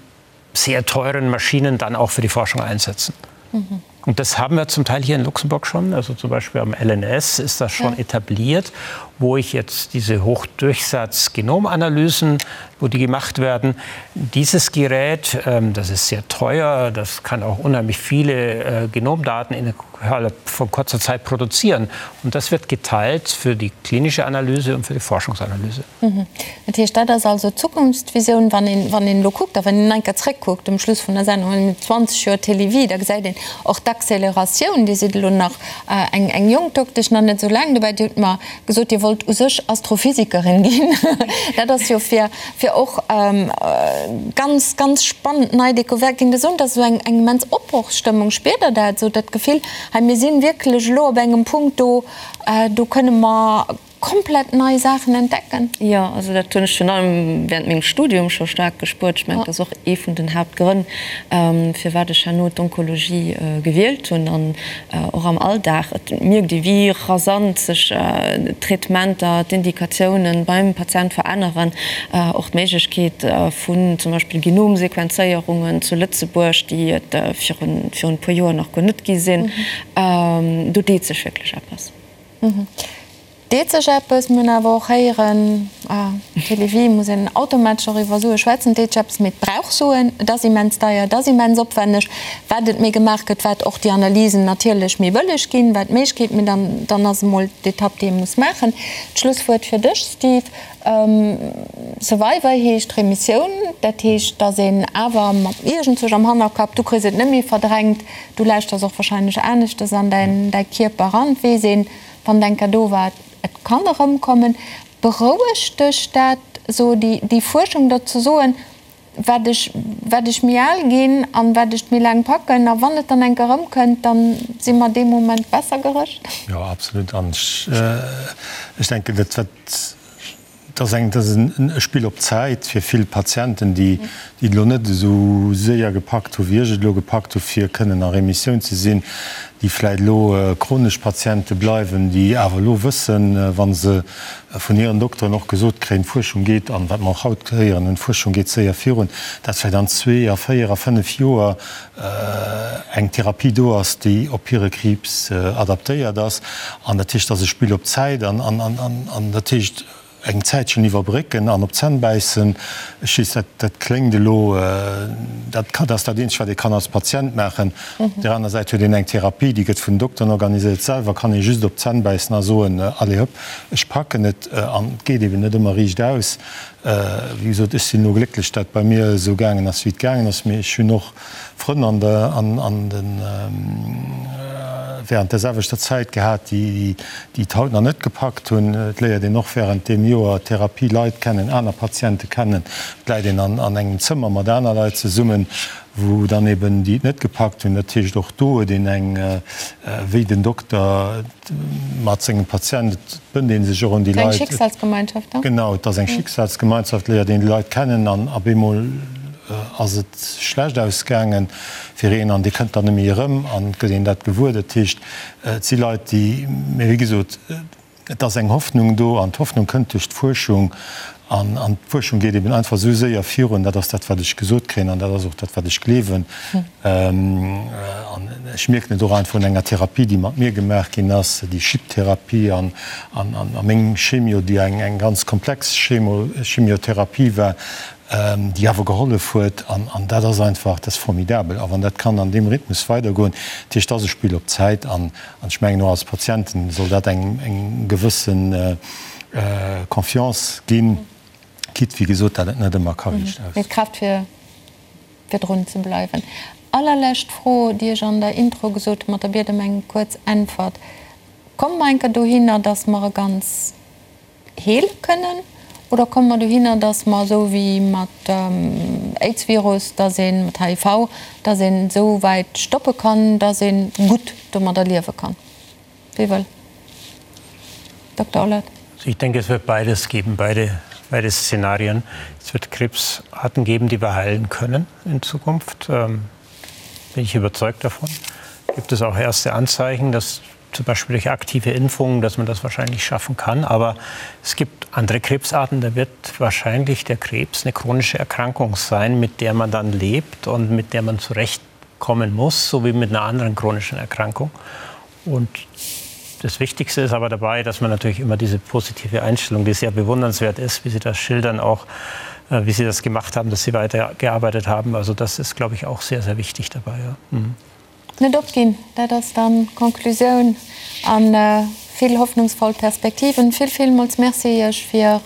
E: sehr teuren Maschinen dann auch für die Forschung einsetzen. Mhm. Und das haben wir zum Teil hier in Luxemburg schon. Also zum Beispiel am LNS ist das schon ja. etabliert, wo ich jetzt diese Hochdurchsatz-Genomanalysen, wo die gemacht werden. Dieses Gerät, ähm, das ist sehr teuer, das kann auch unheimlich viele äh, Genomdaten innerhalb von kurzer Zeit produzieren. Und das wird geteilt für die klinische Analyse und für die Forschungsanalyse.
A: Mhm. Dat heescht, dat ass also d'Zukunftsvisioun, wann een, wann een elo kuckt a wann een eng Kéier zréckkuckt um Schluss vun der Sendung, wann een 20 Joer Télévie, da gesäit een och d'Acceleratioun. Dir sidd elo nach eng, eng jonk Doktesch, nach net esou laang dobäi. Dir hutt mer gesot, Dir wollt u sech Astrophysikerin ginn. Dat ass jo fir, fir och ganz, ganz spannend nei Découverte ginn. Der soen, et ass esou eng, eng immens Opbrochsstëmmung. Spiert Der dat esou, dat Gefill, hei mir si wierklech elo op engem Punkt, do, do kënne mer komplett nei Saachen entdecken?
D: Jo, also dat hunn ech virun allem während mengem Studium scho staark gespuert. Ech mengen, dat ass och ee vun den Haaptgrënn, firwat ech herno d'Onkologie gewielt hunn. An och am Alldag, et mierkt ee wéi rasant sech d'Traitementer, d'Indikatiounen beim Patient veränneren. Och d'Méiglechkeet vun zum Beispill Genomsequenzéierungen zu Lëtzebuerg, déi et virun e puer Joer nach guer net gi sinn. Do deet sech wierklech eppes.
A: Deet sech eppes? Mir hunn awer och héieren, Télévie muss een automatesch och iwwer Sue schwätzen, et deet sech eppes, mee et brauch Suen, et ass immens deier, et ass immens opwänneg. Wat et méi gemaach gëtt, wat och déi Analysen natierlech méi bëlleg ginn, wat d'Méiglechkeet, mee dann, dann ass emol d'Etapp, déi ee muss maachen. D'Schlusswuert fir dech, Steve. Survivor heescht Remissioun, dat heescht, datt een awer mat iergendzwousch am Hannerkapp, du kriss et net méi verdrängt, Du lauschters och wahrscheinlech aneschtes an däin däi Kierper eran, et weess een, wann et eng Kéier do war, et kann erëmkommen. Berouegt dech dat esou, déi déi Fuerschung, der ze soen, wat ech wat ech méi al ginn an wat ech méi laang packen, a wann et dann eng Kéier erëmkënnt, dann si mer dee Moment besser gerëscht?
B: Jo, absolut. An ech ech denken, dat wat Et ass eng, et ass e Spill op Zäit fir vill Patienten, déi et elo net esou séier gepackt hu wéi ech et elo gepackt hu fir kënnen a Remissioun ze sinn, déi vläicht elo chronesch Patiente bleiwen, déi awer elo wëssen, wa se vun hiren Dokteren och gesot kréien, d'Fuerschung geet, an wat mer och haut héieren hunn, d'Fuerschung geet séier virun, dat vläicht an zwee a véier a fënnef Joer eng Therapie do ass, déi op hire Kriibs adaptéiert ass. An dat heescht, et ass e Spill op Zäit an dat heescht eng Zäitchen iwwerbrécken an op d'Zänn bäissen. Ech weess, dat, dat kléngt elo, dat dat ass dat Eenzegt, wat ee kann als Patient maachen. Op där aner Säit huet een eng Therapie, déi gëtt vun den Dokteren organiséiert. Selwer kann ee just op d'Zänn bäissen a soen, Allez hop, ech packen et. An et geet eben net ëmmer riicht aus. Wéi gesot, ech sinn elo glécklech, dat bei mir esou gaangen ass, wéi et gaangen ass. Mee ech hunn och Frënn an der, an, an den, während där selwechter Zäit gehat, déi, déi et haut nach net gepackt hunn. Et léiert een och während deem Joer Therapie Leit kennen, aner Patiente kennen. Et läit een an, an engem Zëmmer mat aner Leit zesummen, wou dann eben déi et net gepackt hunn. Dat heescht, och do huet een eng, wéi den Dokter mat sengem Patient, et bënnt ee sech och un déi Leit.
A: Eng Schicksalsgemeinschaft,
B: ne? Genau, et ass eng Schicksalsgemeinschaft, léiert een déi Leit kennen an op eemol ass et schlecht ausgaange fir een an dee kënnt dann net méi erëm an et gëtt een dat gewuer. Dat heescht, et si Leit, déi, mee wéi gesot, Et ass eng Hoffnung do, an d'Hoffnung kënnt duerch d'Fuerschung. An d'Fuerschung geet eben einfach esou séier virun. Dat ass dat, wat ech gesot kréien, an dat ass och dat, wat ech gleewen. An ech mierken et och einfach un enger Therapie, déi mat mir gemaach ginn ass, déi Chip-Therapie an a meng Chemio, déi eng ganz komplex Chemo, Chemiotherapie war. déi awer gehollef huet. An dat ass einfach, dat ass formidabel. A wann dat kann an deem Rhythmus weidergoen, dat heescht, dat ass e Spill op Zäit. An ech mengen, och als Patienten soll dat engem eng gewësse Confiance ginn, quitte, wéi gesot, dat et net ëmmer ka riicht
A: aus. Mee d'Kraaft fir fir drun ze bleiwen. Allerlescht Fro, déi ech an der Intro gesot hunn, mat der Biet ëm eng kuerz Äntwert, Komme mer eng Kéier dohinner, datt mer e ganz heele kënnen, oder komme mer dohinner, datt mer esou wéi mat Aids-Virus, datt ee mat HIV, datt een esou wäit stoppe kann, datt ee gutt domadder liewe kann? Wie wëll? Dokter Ollert.
E: Also ich denke, es wird beides geben, beide, beide Szenarien. Es wird Krebsarten geben, die wir heilen können in Zukunft. Ähm, bin ich überzeugt davon. Gibt es auch erste Anzeichen, dass zum Beispiel durch aktive Impfungen, dass man das wahrscheinlich schaffen kann. Aber es gibt andere Krebsarten, da wird wahrscheinlich der Krebs eine chronische Erkrankung sein, mit der man dann lebt und mit der man zurechtkommen muss, so wie mit einer anderen chronischen Erkrankung. Und das Wichtigste ist aber dabei, dass man natürlich immer diese positive Einstellung, die sehr bewundernswert ist, wie Sie das schildern, auch äh, wie Sie das gemacht haben, dass Sie weitergearbeitet haben. Also das ist, glaube ich, auch sehr, sehr wichtig dabei. Ja. Mhm.
A: Net opginn, dat ass dann d'Conclusioun a vill hoffnungsvoll Perspektiven. Vill, villmools Merci Iech fir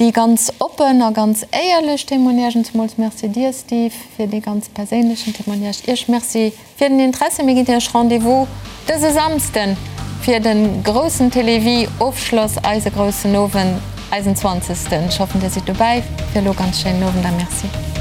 A: déi ganz oppen a ganz éierlech Témoignagen. Zemools Merci dir, Steve, fir dee ganz perséinlechen Témoignage. Iech Merci fir den Interesse. Mir ginn Iech Rendez-vous dëse Samsden fir de groussen Télévie-Ofschloss, eise groussen Owend, eisen zwanzegsten. Ech hoffen, Dir sidd dobäi. Fir elo ganz schéinen Owend a Merci.